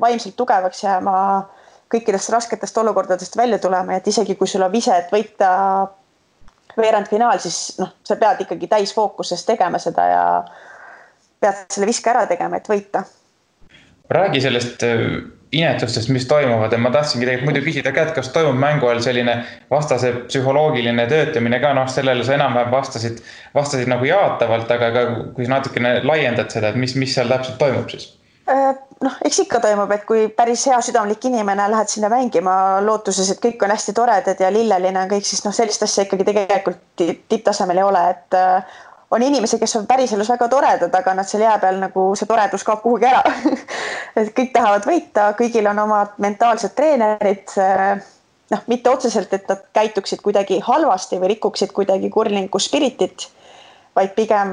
Speaker 3: vaimselt tugevaks jääma kõikidest rasketest olukordadest välja tulema, et isegi kui sul on vise, et võita veerandfinaal, siis sa pead ikkagi täisfookuses tegema seda ja pead selle viske ära tegema, et võita.
Speaker 2: Räägi sellest inetustest, mis toimuvad, ja ma tahtsingi tegelikult muidu küsida ka, et kas toimub mängu all selline vastase psühholoogiline töötamine ka, sellele sa enam-vähem vastasid nagu jaatavalt, aga kui sa natukene laiendad seda, et mis seal täpselt toimub siis?
Speaker 3: Eks ikka toimub, et kui päris hea südamlik inimene lähed sinna mängima lootuses, et kõik on hästi toredad ja lilleline on kõik, siis sellist asja ikkagi tegelikult tipptasemel ei ole, et on inimesi, kes on päriselus väga toredad, aga nad seal jää peal nagu see toredus kaob kuhugi ära. Et kõik tahavad võita, kõigil on omad mentaalsed treenerid, noh, mitte otseselt, et nad käituksid kuidagi halvasti või rikuksid kuidagi kurlingu spiritit, vaid pigem,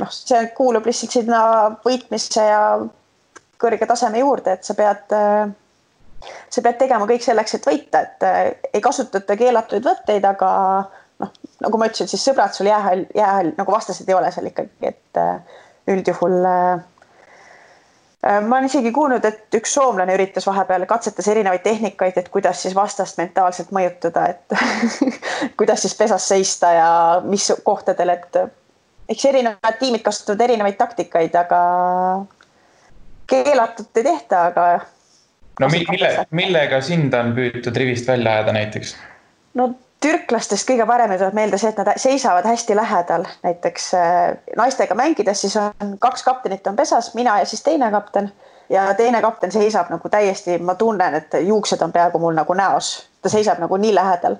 Speaker 3: noh, see kuulub lihtsalt sinna võitmise ja kõrge taseme juurde, et sa pead tegema kõik selleks, et võita, et ei kasutata keelatuid võtteid, aga noh, nagu ma ütlesin, siis sõbrad sul jäähall nagu vastased ei ole seal ikkagi, et üldjuhul ma olen isegi kuulnud, et üks soomlane üritas vahepeal katsetas erinevaid tehnikaid, et kuidas siis vastast mentaalselt mõjutada, et kuidas siis pesas seista ja mis kohtadel, et eks erinevad tiimid kasutavad erinevaid taktikaid, aga keelatud ei tehta, aga
Speaker 2: no millega sind on püütud rivist välja ajada näiteks?
Speaker 3: No türklastest kõige parem tuleb meelde see, et nad seisavad hästi lähedal. Näiteks naistega mängides siis on 2 kaptenit on pesas, mina ja siis teine kapten. Ja teine kapten seisab nagu täiesti, ma tunnen, et juuksed on peaaegu mul nagu näos. Ta seisab nagu nii lähedal.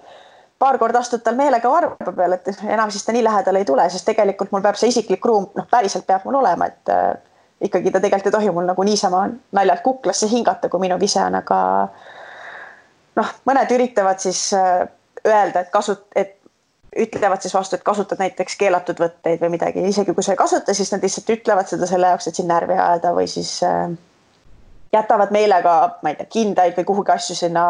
Speaker 3: Paar korda astud tal meelega varba peal, et enam siis ta nii lähedal ei tule, sest tegelikult mul peab see isiklik ruum, noh päriselt peab mul olema, et ikkagi ta tegelikult ei tohi mul nagu niisama naljalt kuklasse hingata, kui minu vise on, aga noh, mõned üritavad siis öelda, et ütlevad siis vastu, et kasutad näiteks keelatud võtteid või midagi. Isegi kui sa ei kasuta, siis nad lihtsalt ütlevad seda selle jaoks, et siin närvi ajada või siis jätavad meelega, ma ei tea, kindaid või kuhugi asju sinna,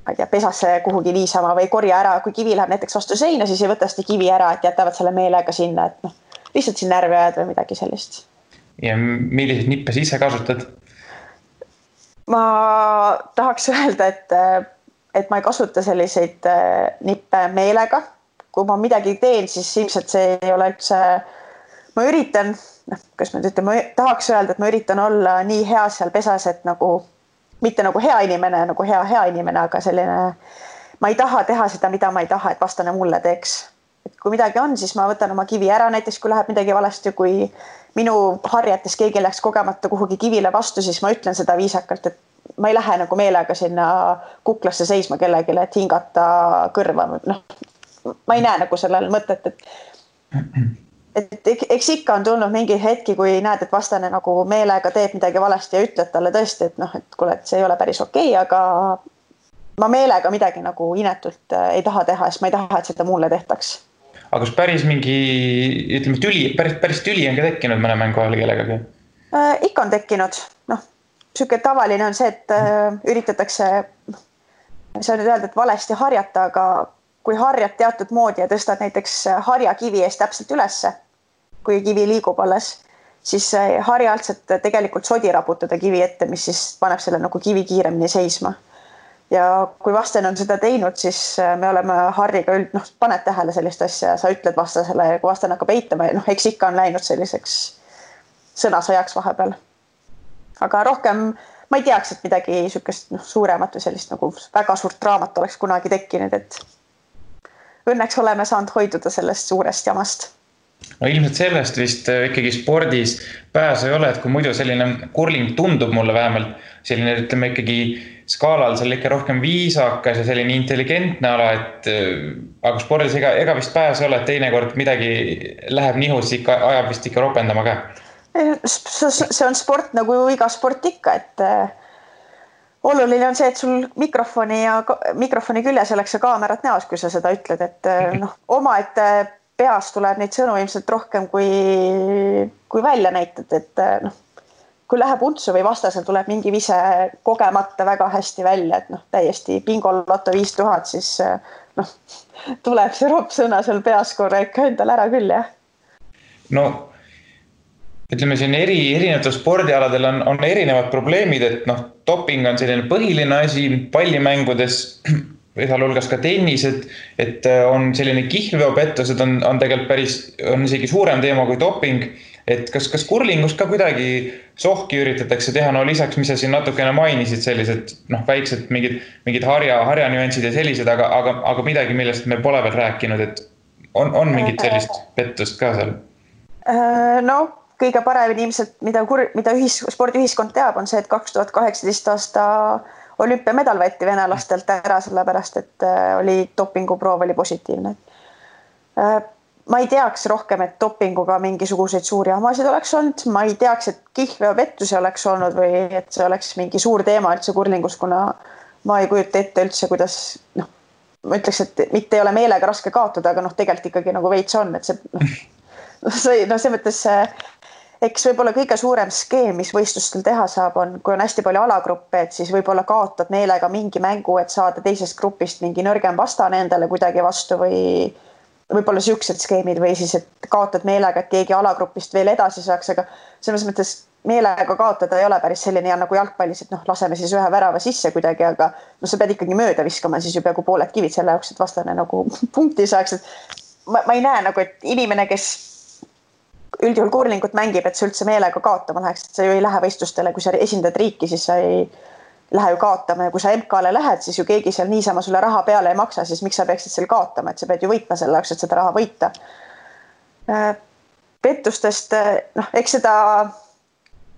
Speaker 3: ma ei tea, pesasse kuhugi niisama või korja ära. Kui kivi läheb näiteks vastu seina, siis ei võta seda kivi ära, et jätavad selle meelega sinna, et noh, lihtsalt siin närvi ajada või midagi sellist.
Speaker 2: Ja milliseid nippe siis ise kasutad?
Speaker 3: Ma tahaks öelda, et ma ei kasuta selliseid nippe meelega. Kui ma midagi teen, siis ilmselt see ei ole üldse, ma üritan, kas ma ütlen, ma tahaks öelda, et ma üritan olla nii hea seal pesas, et nagu, mitte nagu hea inimene, nagu hea inimene, aga selline, ma ei taha teha seda, mida ma ei taha, et vastane mulle teeks. Et kui midagi on, siis ma võtan oma kivi ära, näiteks kui läheb midagi valesti, kui minu harjates keegi läks kogemata kuhugi kivile vastu, siis ma ütlen seda viisakalt, et ma ei lähe nagu meelega sinna kuklasse seisma kellegile, et hingata kõrva. No, ma ei näe nagu sellel mõtet, et eks ikka on tulnud mingi hetki, kui näed, et vastane nagu meelega teeb midagi valesti ja ütled talle tõesti, et noh, et kuule, et see ei ole päris okei, aga ma meelega midagi nagu inetult ei taha teha, sest ma ei taha, et seda mulle tehtaks.
Speaker 2: Aga kas päris mingi, ütleme, päris tüli on ka tekkinud mõne mängu ajal kellegagi?
Speaker 3: Ikka on tekkinud, noh. Süke tavaline on see, et üritatakse, see on nüüd öelda, et valesti harjata, aga kui harjad teatud moodi ja tõstad näiteks harja kivi eest täpselt ülesse, kui kivi liigub alles, siis harja altselt tegelikult sodi raputada kivi ette, mis siis paneb selle nagu kivi kiiremini seisma. Ja kui vastane on seda teinud, siis me oleme harriga paned tähele sellist asja ja sa ütled vastasele, kui vastane hakkab eitama ja eks ikka on läinud selliseks sõnasõjaks vahepeal. Aga rohkem ma ei teaks, et midagi sükest suuremat või sellist nagu väga suurt draamat oleks kunagi tekkinud, et õnneks oleme saanud hoiduda sellest suurest jamast.
Speaker 2: No ilmselt sellest vist ikkagi spordis pääsu ei ole, et kui muidu selline kurling tundub mulle vähemalt selline, ütleme ikkagi skaalal seal ikka rohkem viisakas ja selline intelligentne ala, et aga spordis ega vist pääsu ei ole, et teinekord midagi läheb nihus, ikka ajab vist ikka ropendama ka.
Speaker 3: See on sport nagu iga sport ikka, et oluline on see, et sul mikrofoni küljes oleks see kaamerat näos, kui sa seda ütled, et oma, et peas tuleb neid sõnu ilmselt rohkem kui välja näitad, et kui läheb untsu või vastasel tuleb mingi vise kogemata väga hästi välja, et täiesti bingoloto 5000, siis tuleb see roppsõna seal peas korra ikka endal ära küll, jah.
Speaker 2: No ütleme siin erinevatel spordialadel on erinevad probleemid, et doping on selline põhiline asi pallimängudes, sealhulgas ka tennis, et on selline kihlveopettused on tegelikult on isegi suurem teema kui doping, et kas kurlingus ka kuidagi sohki üritatakse teha, lisaks, mis sa siin natukene mainisid, sellised väiksed mingid harja nüansid ja sellised, aga midagi, millest me pole veel rääkinud, et on mingit sellist pettust ka seal?
Speaker 3: Kõige paremini ilmselt, mida spordiühiskond teab, on see, et 2018 aasta olümpiamedal võeti venelastelt ära, sellepärast, et oli dopinguproov oli positiivne. ma ei teaks rohkem, et dopinguga mingisuguseid suuri hamasid oleks olnud, ma ei teaks, et kihlveopettusi oleks olnud või et see oleks mingi suur teema üldse kurlingus, kuna ma ei kujuta ette üldse, kuidas ma ütleks, et mitte ei ole meelega raske kaotada, aga tegelikult ikkagi nagu veits on, et see mõttes eks võib-olla kõige suurem skeem, mis võistlustel teha saab, on, kui on hästi palju alagruppe, et siis võib-olla kaotad meelega mingi mängu, et saada teisest grupist mingi nõrgem vastane endale kuidagi vastu või võib-olla siuksed skeemid või siis, et kaotad meelega, et keegi alagrupist veel edasi saaks, aga selles mõttes meelega kaotada ei ole päris selline ja nagu jalgpallis, et laseme siis ühe värava sisse kuidagi, aga sa pead ikkagi mööda viskama siis ju peaaegu pooled kivid selle jaoks, et vastane nagu punkti saaks, et ma ei näe nagu, et inimene, kes üldjuhul kurlingut mängib, et sa üldse meelega kaotama läheks, et sa ju ei lähe võistlustele, kui sa esindad riiki, siis sa ei lähe ju kaotama ja kui sa MK-le lähed, siis ju keegi seal niisama sulle raha peale ei maksa, siis miks sa peaksid seal kaotama, et sa pead ju võitma selle jaoks, et seda raha võita. Pettustest, eks seda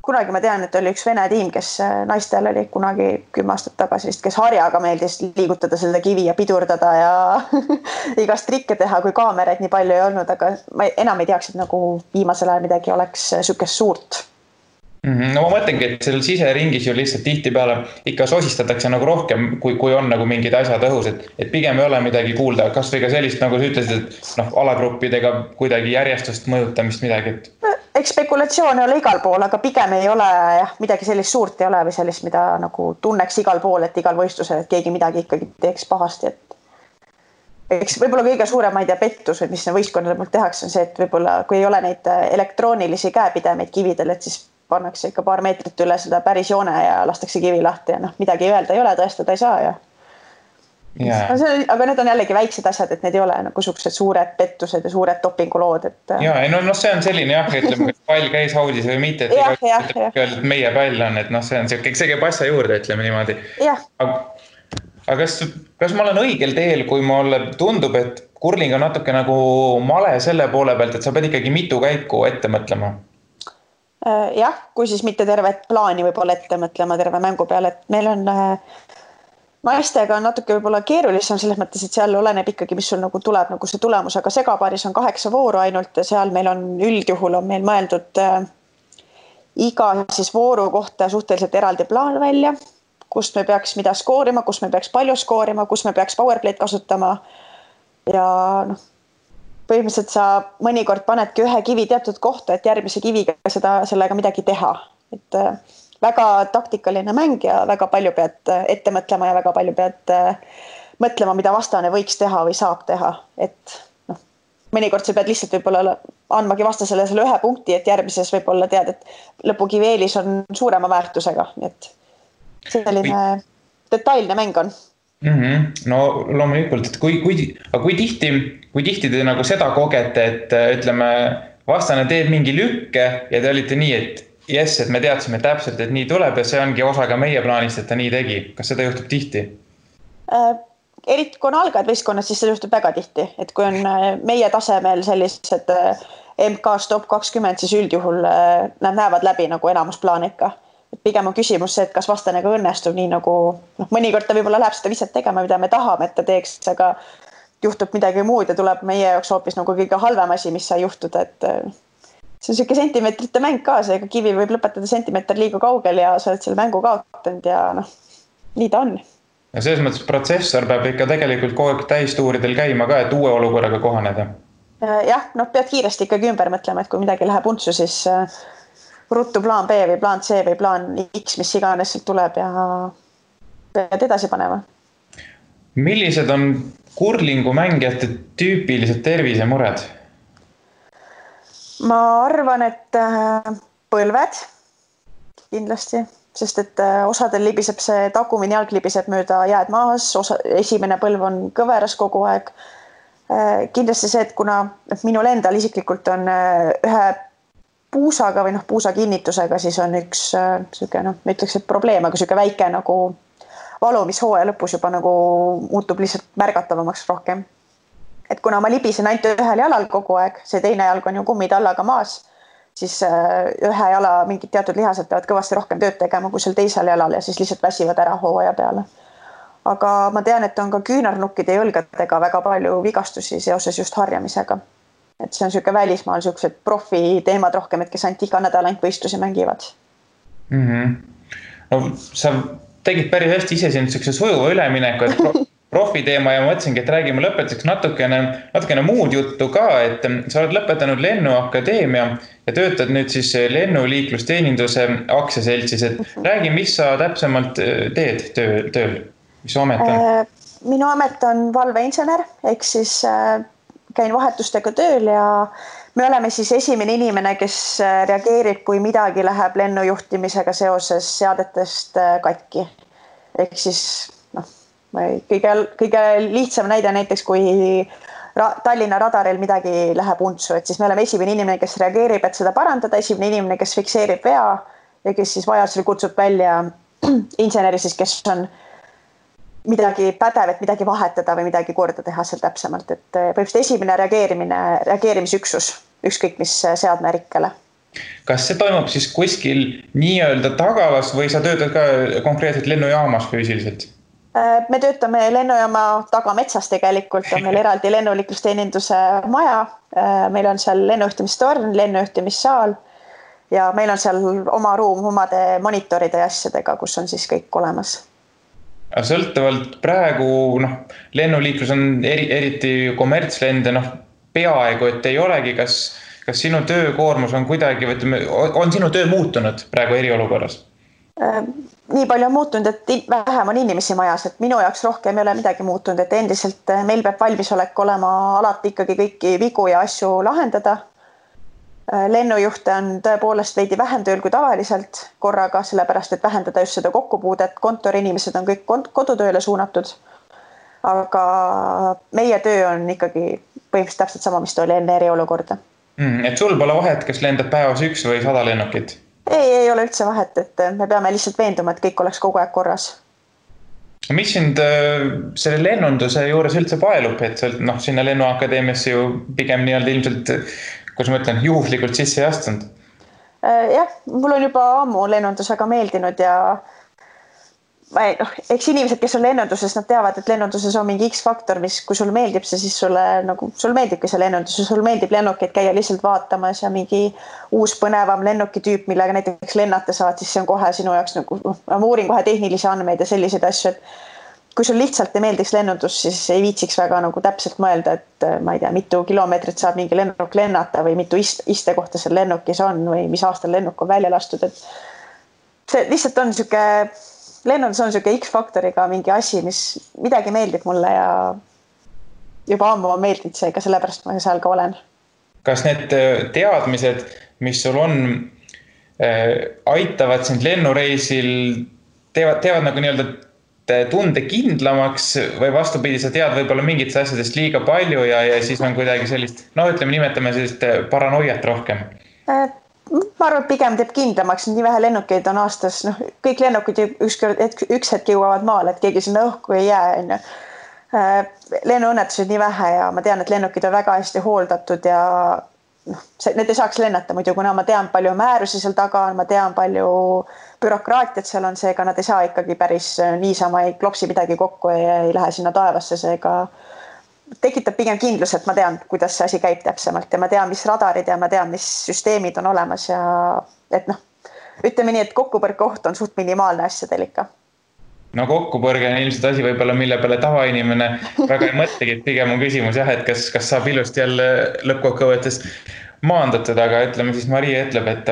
Speaker 3: kunagi ma tean, et oli üks Vene tiim, kes naistel oli kunagi 10 aastat tagasi vist, kes harjaga meeldis liigutada seda kivi ja pidurdada ja igast trikke teha, kui kaameraid nii palju ei olnud, aga ma enam ei teaks, et nagu viimasel ajal midagi oleks sükest suurt.
Speaker 2: No ma mõtlengi, et sellel siseringis ju lihtsalt tihtipeale ikka sosistatakse nagu rohkem, kui on nagu mingid asjad õhus, et pigem ei ole midagi kuulda, kas või ka sellist, nagu sa ütlesid, et alagruppidega kuidagi järjestust mõjutamist midagi, et
Speaker 3: eks spekulatsioon ei ole igal pool, aga pigem ei ole midagi sellist suurt ei ole või sellist, mida nagu tunneks igal pool, et igal võistlusel, et keegi midagi ikkagi teeks pahasti, et eks võib-olla kõige suurem, ma ei tea, pettus, mis võistkonnade poolt tehakse, on see, et võib-olla kui ei ole neid elektroonilisi käepidemeid kividel, et siis pannakse ikka paar meetrit üle seda päris joone ja lastakse kivi lahti ja midagi öelda ei ole, tõestada ei saa ja aga need on jällegi väiksed asjad, et need ei ole nagu suksed suured pettused ja suured dopingulood, et
Speaker 2: see on selline ütleme, kas pall käis haudis või mitte, et meie pall on, et see on see käib asja juurde, ütleme niimoodi. Aga kas ma olen õigel teel, kui mulle tundub, et kurling on natuke nagu male selle poole pealt, et sa pead ikkagi mitu käiku ette mõtlema?
Speaker 3: Jah, kui siis mitte tervet plaani võib-olla ette mõtlema terve mängu peale, et meil on naistega on natuke võib-olla keerulisem selles mõttes, et seal oleneb ikkagi, mis sul nagu tuleb nagu see tulemus, aga segapaaris on 8 vooru ainult ja seal meil on üldjuhul on meil mõeldud iga siis vooru kohta suhteliselt eraldi plaan välja, kust me peaks mida skoorima, kus me peaks palju skoorima, kus me peaks powerplay'd kasutama ja põhimõtteliselt sa mõnikord panedki ühe kivi teatud kohta, et järgmise kiviga sellega midagi teha. Et väga taktikaline mäng ja väga palju pead ette mõtlema ja väga palju pead mõtlema, mida vastane võiks teha või saab teha. Et mõnikord sa pead lihtsalt võib-olla andmagi vastasele selle ühe punkti, et järgmises võib-olla tead, et lõpukivi eelis on suurema väärtusega. Et selline detailne mäng on.
Speaker 2: No loomulikult, et kui tihti te nagu seda kogete, et ütleme, vastane teeb mingi lükke ja te olite nii, et yes, et me teadsime täpselt, et nii tuleb ja see ongi osa ka meie plaanist, et ta nii tegi. Kas seda juhtub tihti?
Speaker 3: Eriti kui on algajad võistkonnad, siis see juhtub väga tihti, et kui on meie tasemel sellised MK-s top 20, siis üldjuhul nad näevad läbi nagu enamusplaani ikka. Pigem on küsimus see, et kas vastanega õnnestub nii nagu, mõnikord ta võib-olla läheb seda viset tegema, mida me tahame, et ta teeks, aga juhtub midagi muud ja tuleb meie jaoks hoopis nagu kõige halvem asi, mis sai juhtuda, et see on selline sentimeetrite mäng ka, seega kivi võib lõpetada sentimeeter liiga kaugel ja sa oled selle mängu kaotanud ja nii ta on.
Speaker 2: Ja selles mõttes protsessor peab ikka tegelikult kogu aeg täistuuridel käima ka, et uue olukorraga kohaneda.
Speaker 3: Jah, pead kiiresti ikkagi ümber mõtlema, et kui midagi läheb untsu, siis ruttu plaan B või plaan C või plaan X, mis iganes sealt tuleb ja pead edasi panema.
Speaker 2: Millised on kurlingu mängijate tüüpilised tervisemured?
Speaker 3: Ma arvan, et põlved kindlasti, sest et osadel libiseb see tagumine jalg libiseb mööda jääd maas, esimene põlv on kõveras kogu aeg. Kindlasti see, et kuna minul endal isiklikult on ühe puusaga või puusa kinnitusega, siis on üks ma ütleks, et probleem, aga selline väike nagu valu, mis hooaja lõpus juba nagu muutub lihtsalt märgatavamaks rohkem. Et kuna ma libisen ainult ühel jalal kogu aeg, see teine jalg on ju kummitallaga maas, siis ühe jala mingid teatud lihased peavad kõvasti rohkem tööd tegema kui seal teisel jalal ja siis lihtsalt väsivad ära hooaja peale. Aga ma tean, et on ka küünarnukkide ja õlgadega väga palju vigastusi seoses just harjamisega. et see on niisugune välismaal niisugused profiteemad rohkem, et kes ainult iga nädal ainult võistlusi mängivad.
Speaker 2: No sa tegid päris hästi ise siin niisuguse sujuva ülemineku, et profiteema ja mõtlesingi, et räägime lõpetuseks natukene muud juttu ka, et sa oled lõpetanud Lennuakadeemia ja töötad nüüd siis lennuliiklusteeninduse aktsiaseltsis, et räägi, mis sa täpsemalt teed tööl, mis su amet on?
Speaker 3: Minu amet on valveinsener, ehk siis käin vahetustega tööl ja me oleme siis esimene inimene, kes reageerib, kui midagi läheb lennujuhtimisega seoses seadetest katki. Ehk siis kõige lihtsam näide näiteks, kui Tallinna radaril midagi läheb untsu, et siis me oleme esimene inimene, kes reageerib, et seda parandada, esimene inimene, kes fikseerib vea ja kes siis vajadusel kutsub välja inseneri siis, kes on midagi pädev, et midagi vahetada või midagi korda teha seal täpsemalt, et põhimõtteliselt esimene reageerimisüksus, ükskõik mis seadmerikkele.
Speaker 2: Kas see toimub siis kuskil nii-öelda tagalas või sa töötad ka konkreetselt lennujaamas füüsiliselt?
Speaker 3: Me töötame lennujaama tagametsas tegelikult, on meil eraldi lennuliiklusteeninduse maja, meil on seal lennujuhtimistorn, lennujuhtimissaal ja meil on seal oma ruum omade monitoride ja asjadega, kus on siis kõik olemas.
Speaker 2: Sõltuvalt praegu lennuliiklus on eriti kommertslende, peaaegu, et ei olegi, kas sinu töökoormus on kuidagi, on sinu töö muutunud praegu eriolukorras?
Speaker 3: Nii palju on muutunud, et vähem on inimesi majas, et minu jaoks rohkem ei ole midagi muutunud, et endiselt meil peab valmisolek olema alati ikkagi kõiki vigu ja asju lahendada. Lennujuhte on tõepoolest veidi vähem tööl kui tavaliselt korraga, sellepärast, et vähendada just seda kokkupuudet, kontoriinimesed on kõik kodutööle suunatud. Aga meie töö on ikkagi põhimõtteliselt täpselt sama, mis ta oli enne eriolukorda.
Speaker 2: Et sul pole vahet, kes lendab päevas 1 või 100 lennukit?
Speaker 3: Ei ole üldse vahet, et me peame lihtsalt veenduma, et kõik oleks kogu aeg korras.
Speaker 2: Mis sind selle lennunduse juures üldse paelub, et sinna Lennuakadeemiasse ju pigem nii-öelda ilmselt, kus ma ütlen, juhuslikult sisse ei astunud?
Speaker 3: Jah, mul on juba ammu lennundus väga meeldinud ja eks inimesed, kes on lennunduses, nad teavad, et lennunduses on mingi X-faktor, mis kui sul meeldib see, siis sul meeldibki see lennundus ja sul meeldib lennukeid käia lihtsalt vaatamas ja mingi uus põnevam lennukitüüp, millega näiteks lennata saad, siis see on kohe sinu jaoks ma uurin kohe tehnilisi andmeid ja selliseid asju, et kui sul lihtsalt ei meeldiks lennundus, siis ei viitsiks väga täpselt mõelda, et ma ei tea, mitu kilomeetrit saab mingi lennuk lennata või mitu istekohta seal lennukis on või mis aastal lennuk on välja lastud, et see lihtsalt on lennundus on niisugune X-faktoriga mingi asi, mis midagi meeldib mulle ja juba ammu on meeldinud seega, sellepärast ma seal ka olen. Kas
Speaker 2: need teadmised, mis sul on, aitavad sind lennureisil, teevad nagu nii-öelda tunde kindlamaks või vastupidi, sa tead võib-olla mingitest asjadest liiga palju ja siis on kuidagi sellist, nimetame sellist paranoiat rohkem?
Speaker 3: Ma arvan, et pigem teeb kindlamaks, nii vähe lennukeid on aastas, kõik lennukid üks hetk jõuavad maale, et keegi sinna õhku ei jää. Lennuõnnetused nii vähe ja ma tean, et lennukid on väga hästi hooldatud ja need ei saaks lennata muidu, kuna ma tean palju määrusi seal taga on, ma tean palju bürokraatiat seal on, seega nad ei saa ikkagi päris niisama, ei klopsi midagi kokku ja ei lähe sinna taevasse, seega tekitab pigem kindlus, et ma tean, kuidas see asi käib täpsemalt ja ma tean, mis radarid ja ma tean, mis süsteemid on olemas ja et ütleme nii, et kokkupõrke oht on suht minimaalne asjadel ikka.
Speaker 2: Kokkupõrge on ilmselt asi võib-olla, mille peale tavainimene väga ei mõtlegi, et pigem on küsimus jah, et kas saab ilusti jälle lõppkokkuvõttes maandatud, aga ütleme siis Maria ütleb, et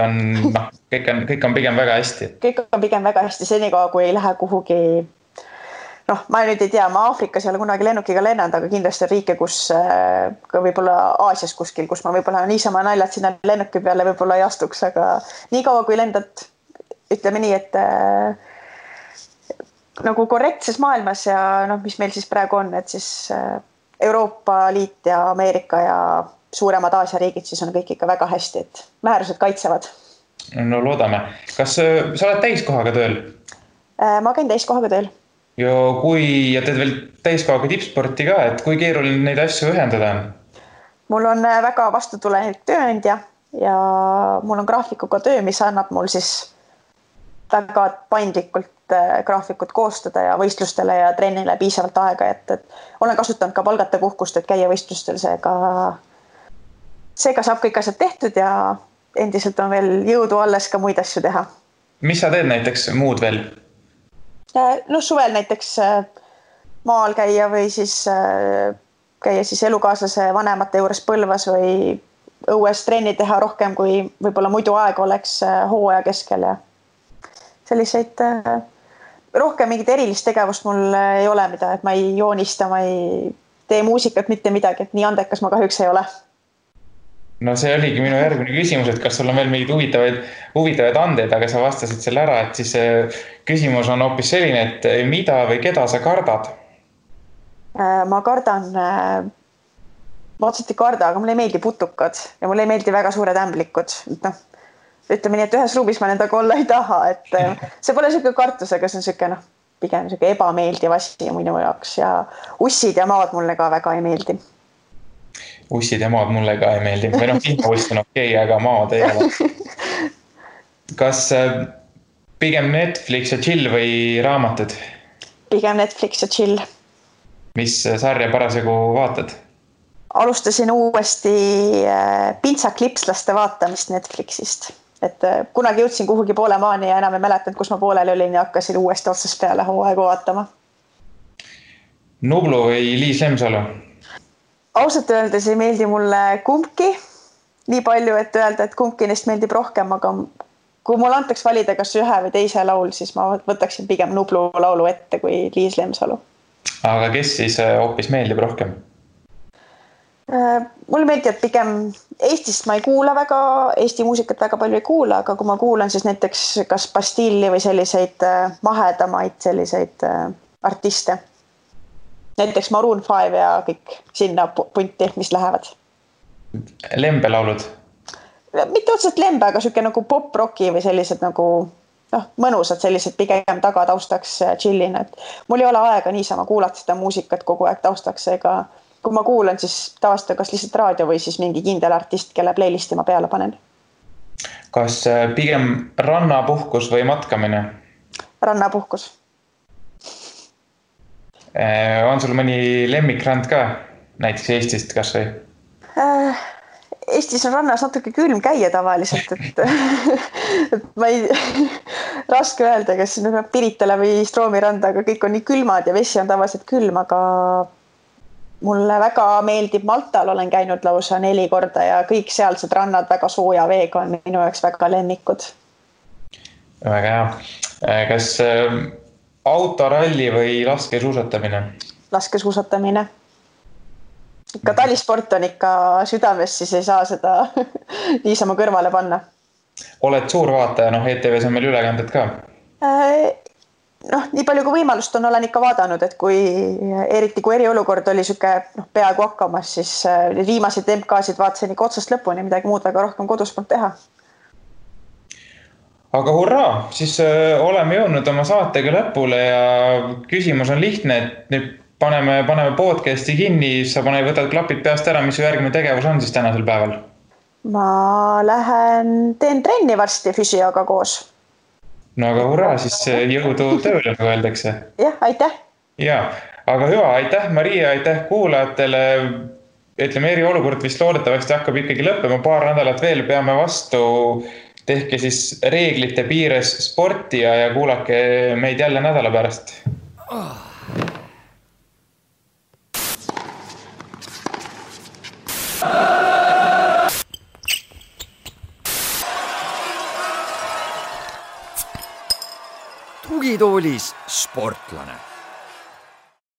Speaker 2: kõik on pigem väga hästi.
Speaker 3: Kõik on pigem väga hästi, senikaua kui ei lähe kuhugi ma nüüd ei tea, ma Aafrikas ei ole kunagi lennukiga lennanud, aga kindlasti on riike, kus ka võib-olla Aasias kuskil, kus ma võib-olla niisama naljad sinna lennuki peale võib-olla ei astuks, aga nii kaua kui lendad, ütleme nii, et nagu korrektses maailmas ja mis meil siis praegu on, et siis Euroopa Liit ja Ameerika ja suuremad Aasia riigid, siis on kõik ikka väga hästi, et määrused kaitsevad.
Speaker 2: No loodame. Kas sa oled täiskohaga tööl?
Speaker 3: Ma käin täiskohaga tööl.
Speaker 2: Ja teed veel täiskohaga tippsporti ka, et kui keeruline neid asju ühendada on?
Speaker 3: Mul on väga vastutulev tööandja ja mul on graafikuga töö, mis annab mul siis väga paindlikult graafikut koostada ja võistlustele ja trennile piisavalt aega, et olen kasutanud ka palgata puhkust, et käia võistlustel, seega seega saab kõik asjad tehtud ja endiselt on veel jõudu alles ka muid asju teha.
Speaker 2: Mis sa teed näiteks muud veel?
Speaker 3: No suvel näiteks maal käia või siis käia siis elukaaslase vanemate juures Põlvas või õues trenni teha rohkem, kui võib-olla muidu aeg oleks hooaja keskel ja selliseid rohkem mingit erilist tegevust mul ei ole, mida, et ma ei joonista, ma ei tee muusikat, mitte midagi, et nii andekas ma kahjuks ei ole.
Speaker 2: No see oligi minu järgmine küsimus, et kas sul on veel mingid huvitavaid andeid, aga sa vastasid selle ära, et siis küsimus on hoopis selline, et mida või keda sa kardad?
Speaker 3: Ma kardan, ma otseselt ei karda, aga mulle ei meeldi putukad ja mulle ei meeldi väga suured ämblikud. No, ütleme nii, et ühes ruumis ma nendega olla ei taha, et see pole selline kartus, aga see on selline pigem selline ebameeldiv asi minu jaoks ja ussid ja maad mulle ka väga ei meeldi.
Speaker 2: Ussid ja maad mulle ka ei meeldi. Või vihmauss on okei, aga maad ei ole. Kas pigem Netflix ja chill või raamatud?
Speaker 3: Pigem Netflix ja chill.
Speaker 2: Mis sarja parasjagu vaatad?
Speaker 3: Alustasin uuesti Pintsaklipslaste vaatamist Netflixist. Et kunagi jõudsin kuhugi poole maani ja enam ei mäletanud, kus ma pooleli olin ja hakkasin uuesti otsast peale hooaegu vaatama. Nublu või Liis Lemsalu? Ausalt öeldes ei meeldi mulle kumbki nii palju, et öelda, et kumbki neist meeldib rohkem, aga kui mul antaks valida kas ühe või teise laul, siis ma võtaksin pigem Nublu laulu ette kui Liis Lemsalu. Aga kes siis hoopis meeldib rohkem? Mulle meeldib pigem Eestist ma ei kuula väga, Eesti muusikat väga palju ei kuula, aga kui ma kuulan siis näiteks kas Bastilli või selliseid mahedamaid selliseid artiste. Näiteks Maroon 5 ja kõik sinna punti, mis lähevad. Lembe laulud? Mitte otseselt lembe, aga selline nagu pop-rocki või sellised nagu mõnusad sellised pigem taga taustaks chillin. Et mul ei ole aega niisama kuulata seda muusikat kogu aeg taustaks, ega kui ma kuulan, siis tavaliselt kas lihtsalt raadio või siis mingi kindel artist, kelle playlisti ma peale panen. Kas pigem rannapuhkus või matkamine? Rannapuhkus. On sul mõni lemmikrand ka, näiteks Eestist kas või? Eestis on rannas natuke külm käia tavaliselt, et ma ei raske öelda, kas Piritala või Stroomiranda, aga kõik on nii külmad ja vesi on tavaliselt külm, aga mulle väga meeldib Maltal, olen käinud lausa 4 korda ja kõik sealsed rannad väga sooja veega on minu jaoks väga lemmikud. Väga hea. Kas autoralli või laskesuusatamine? Laskesuusatamine. Ikka talisport on ikka südames, siis ei saa seda niisama kõrvale panna. Oled suur vaataja, ETVs on meil ülekanded ka? Nii palju kui võimalust on, olen ikka vaadanud, et eriti kui eriolukord oli süke peaaegu hakkamas, siis viimaseid MK-sid vaatasin ikka otsast lõpuni, midagi muud väga rohkem kodus polnud teha. Aga hurraa, siis oleme jõudnud oma saatega lõpule ja küsimus on lihtne, et nüüd paneme podcasti kinni, sa võtad klapid peast ära, mis su järgmine tegevus on siis tänasel päeval? Ma teen trenni varsti füsioga koos. No aga hurraa, siis jõudu tööle, nagu öeldakse. Jah, aitäh. Ja, aga hüva, aitäh Maria, aitäh kuulajatele. Ütleme, eriolukord vist loodetavasti hakkab ikkagi lõppema, paar nädalat veel peame vastu. Tehke siis reeglite piires sporti ja kuulake meid jälle nädala pärast.
Speaker 1: Tugitoolis sportlane.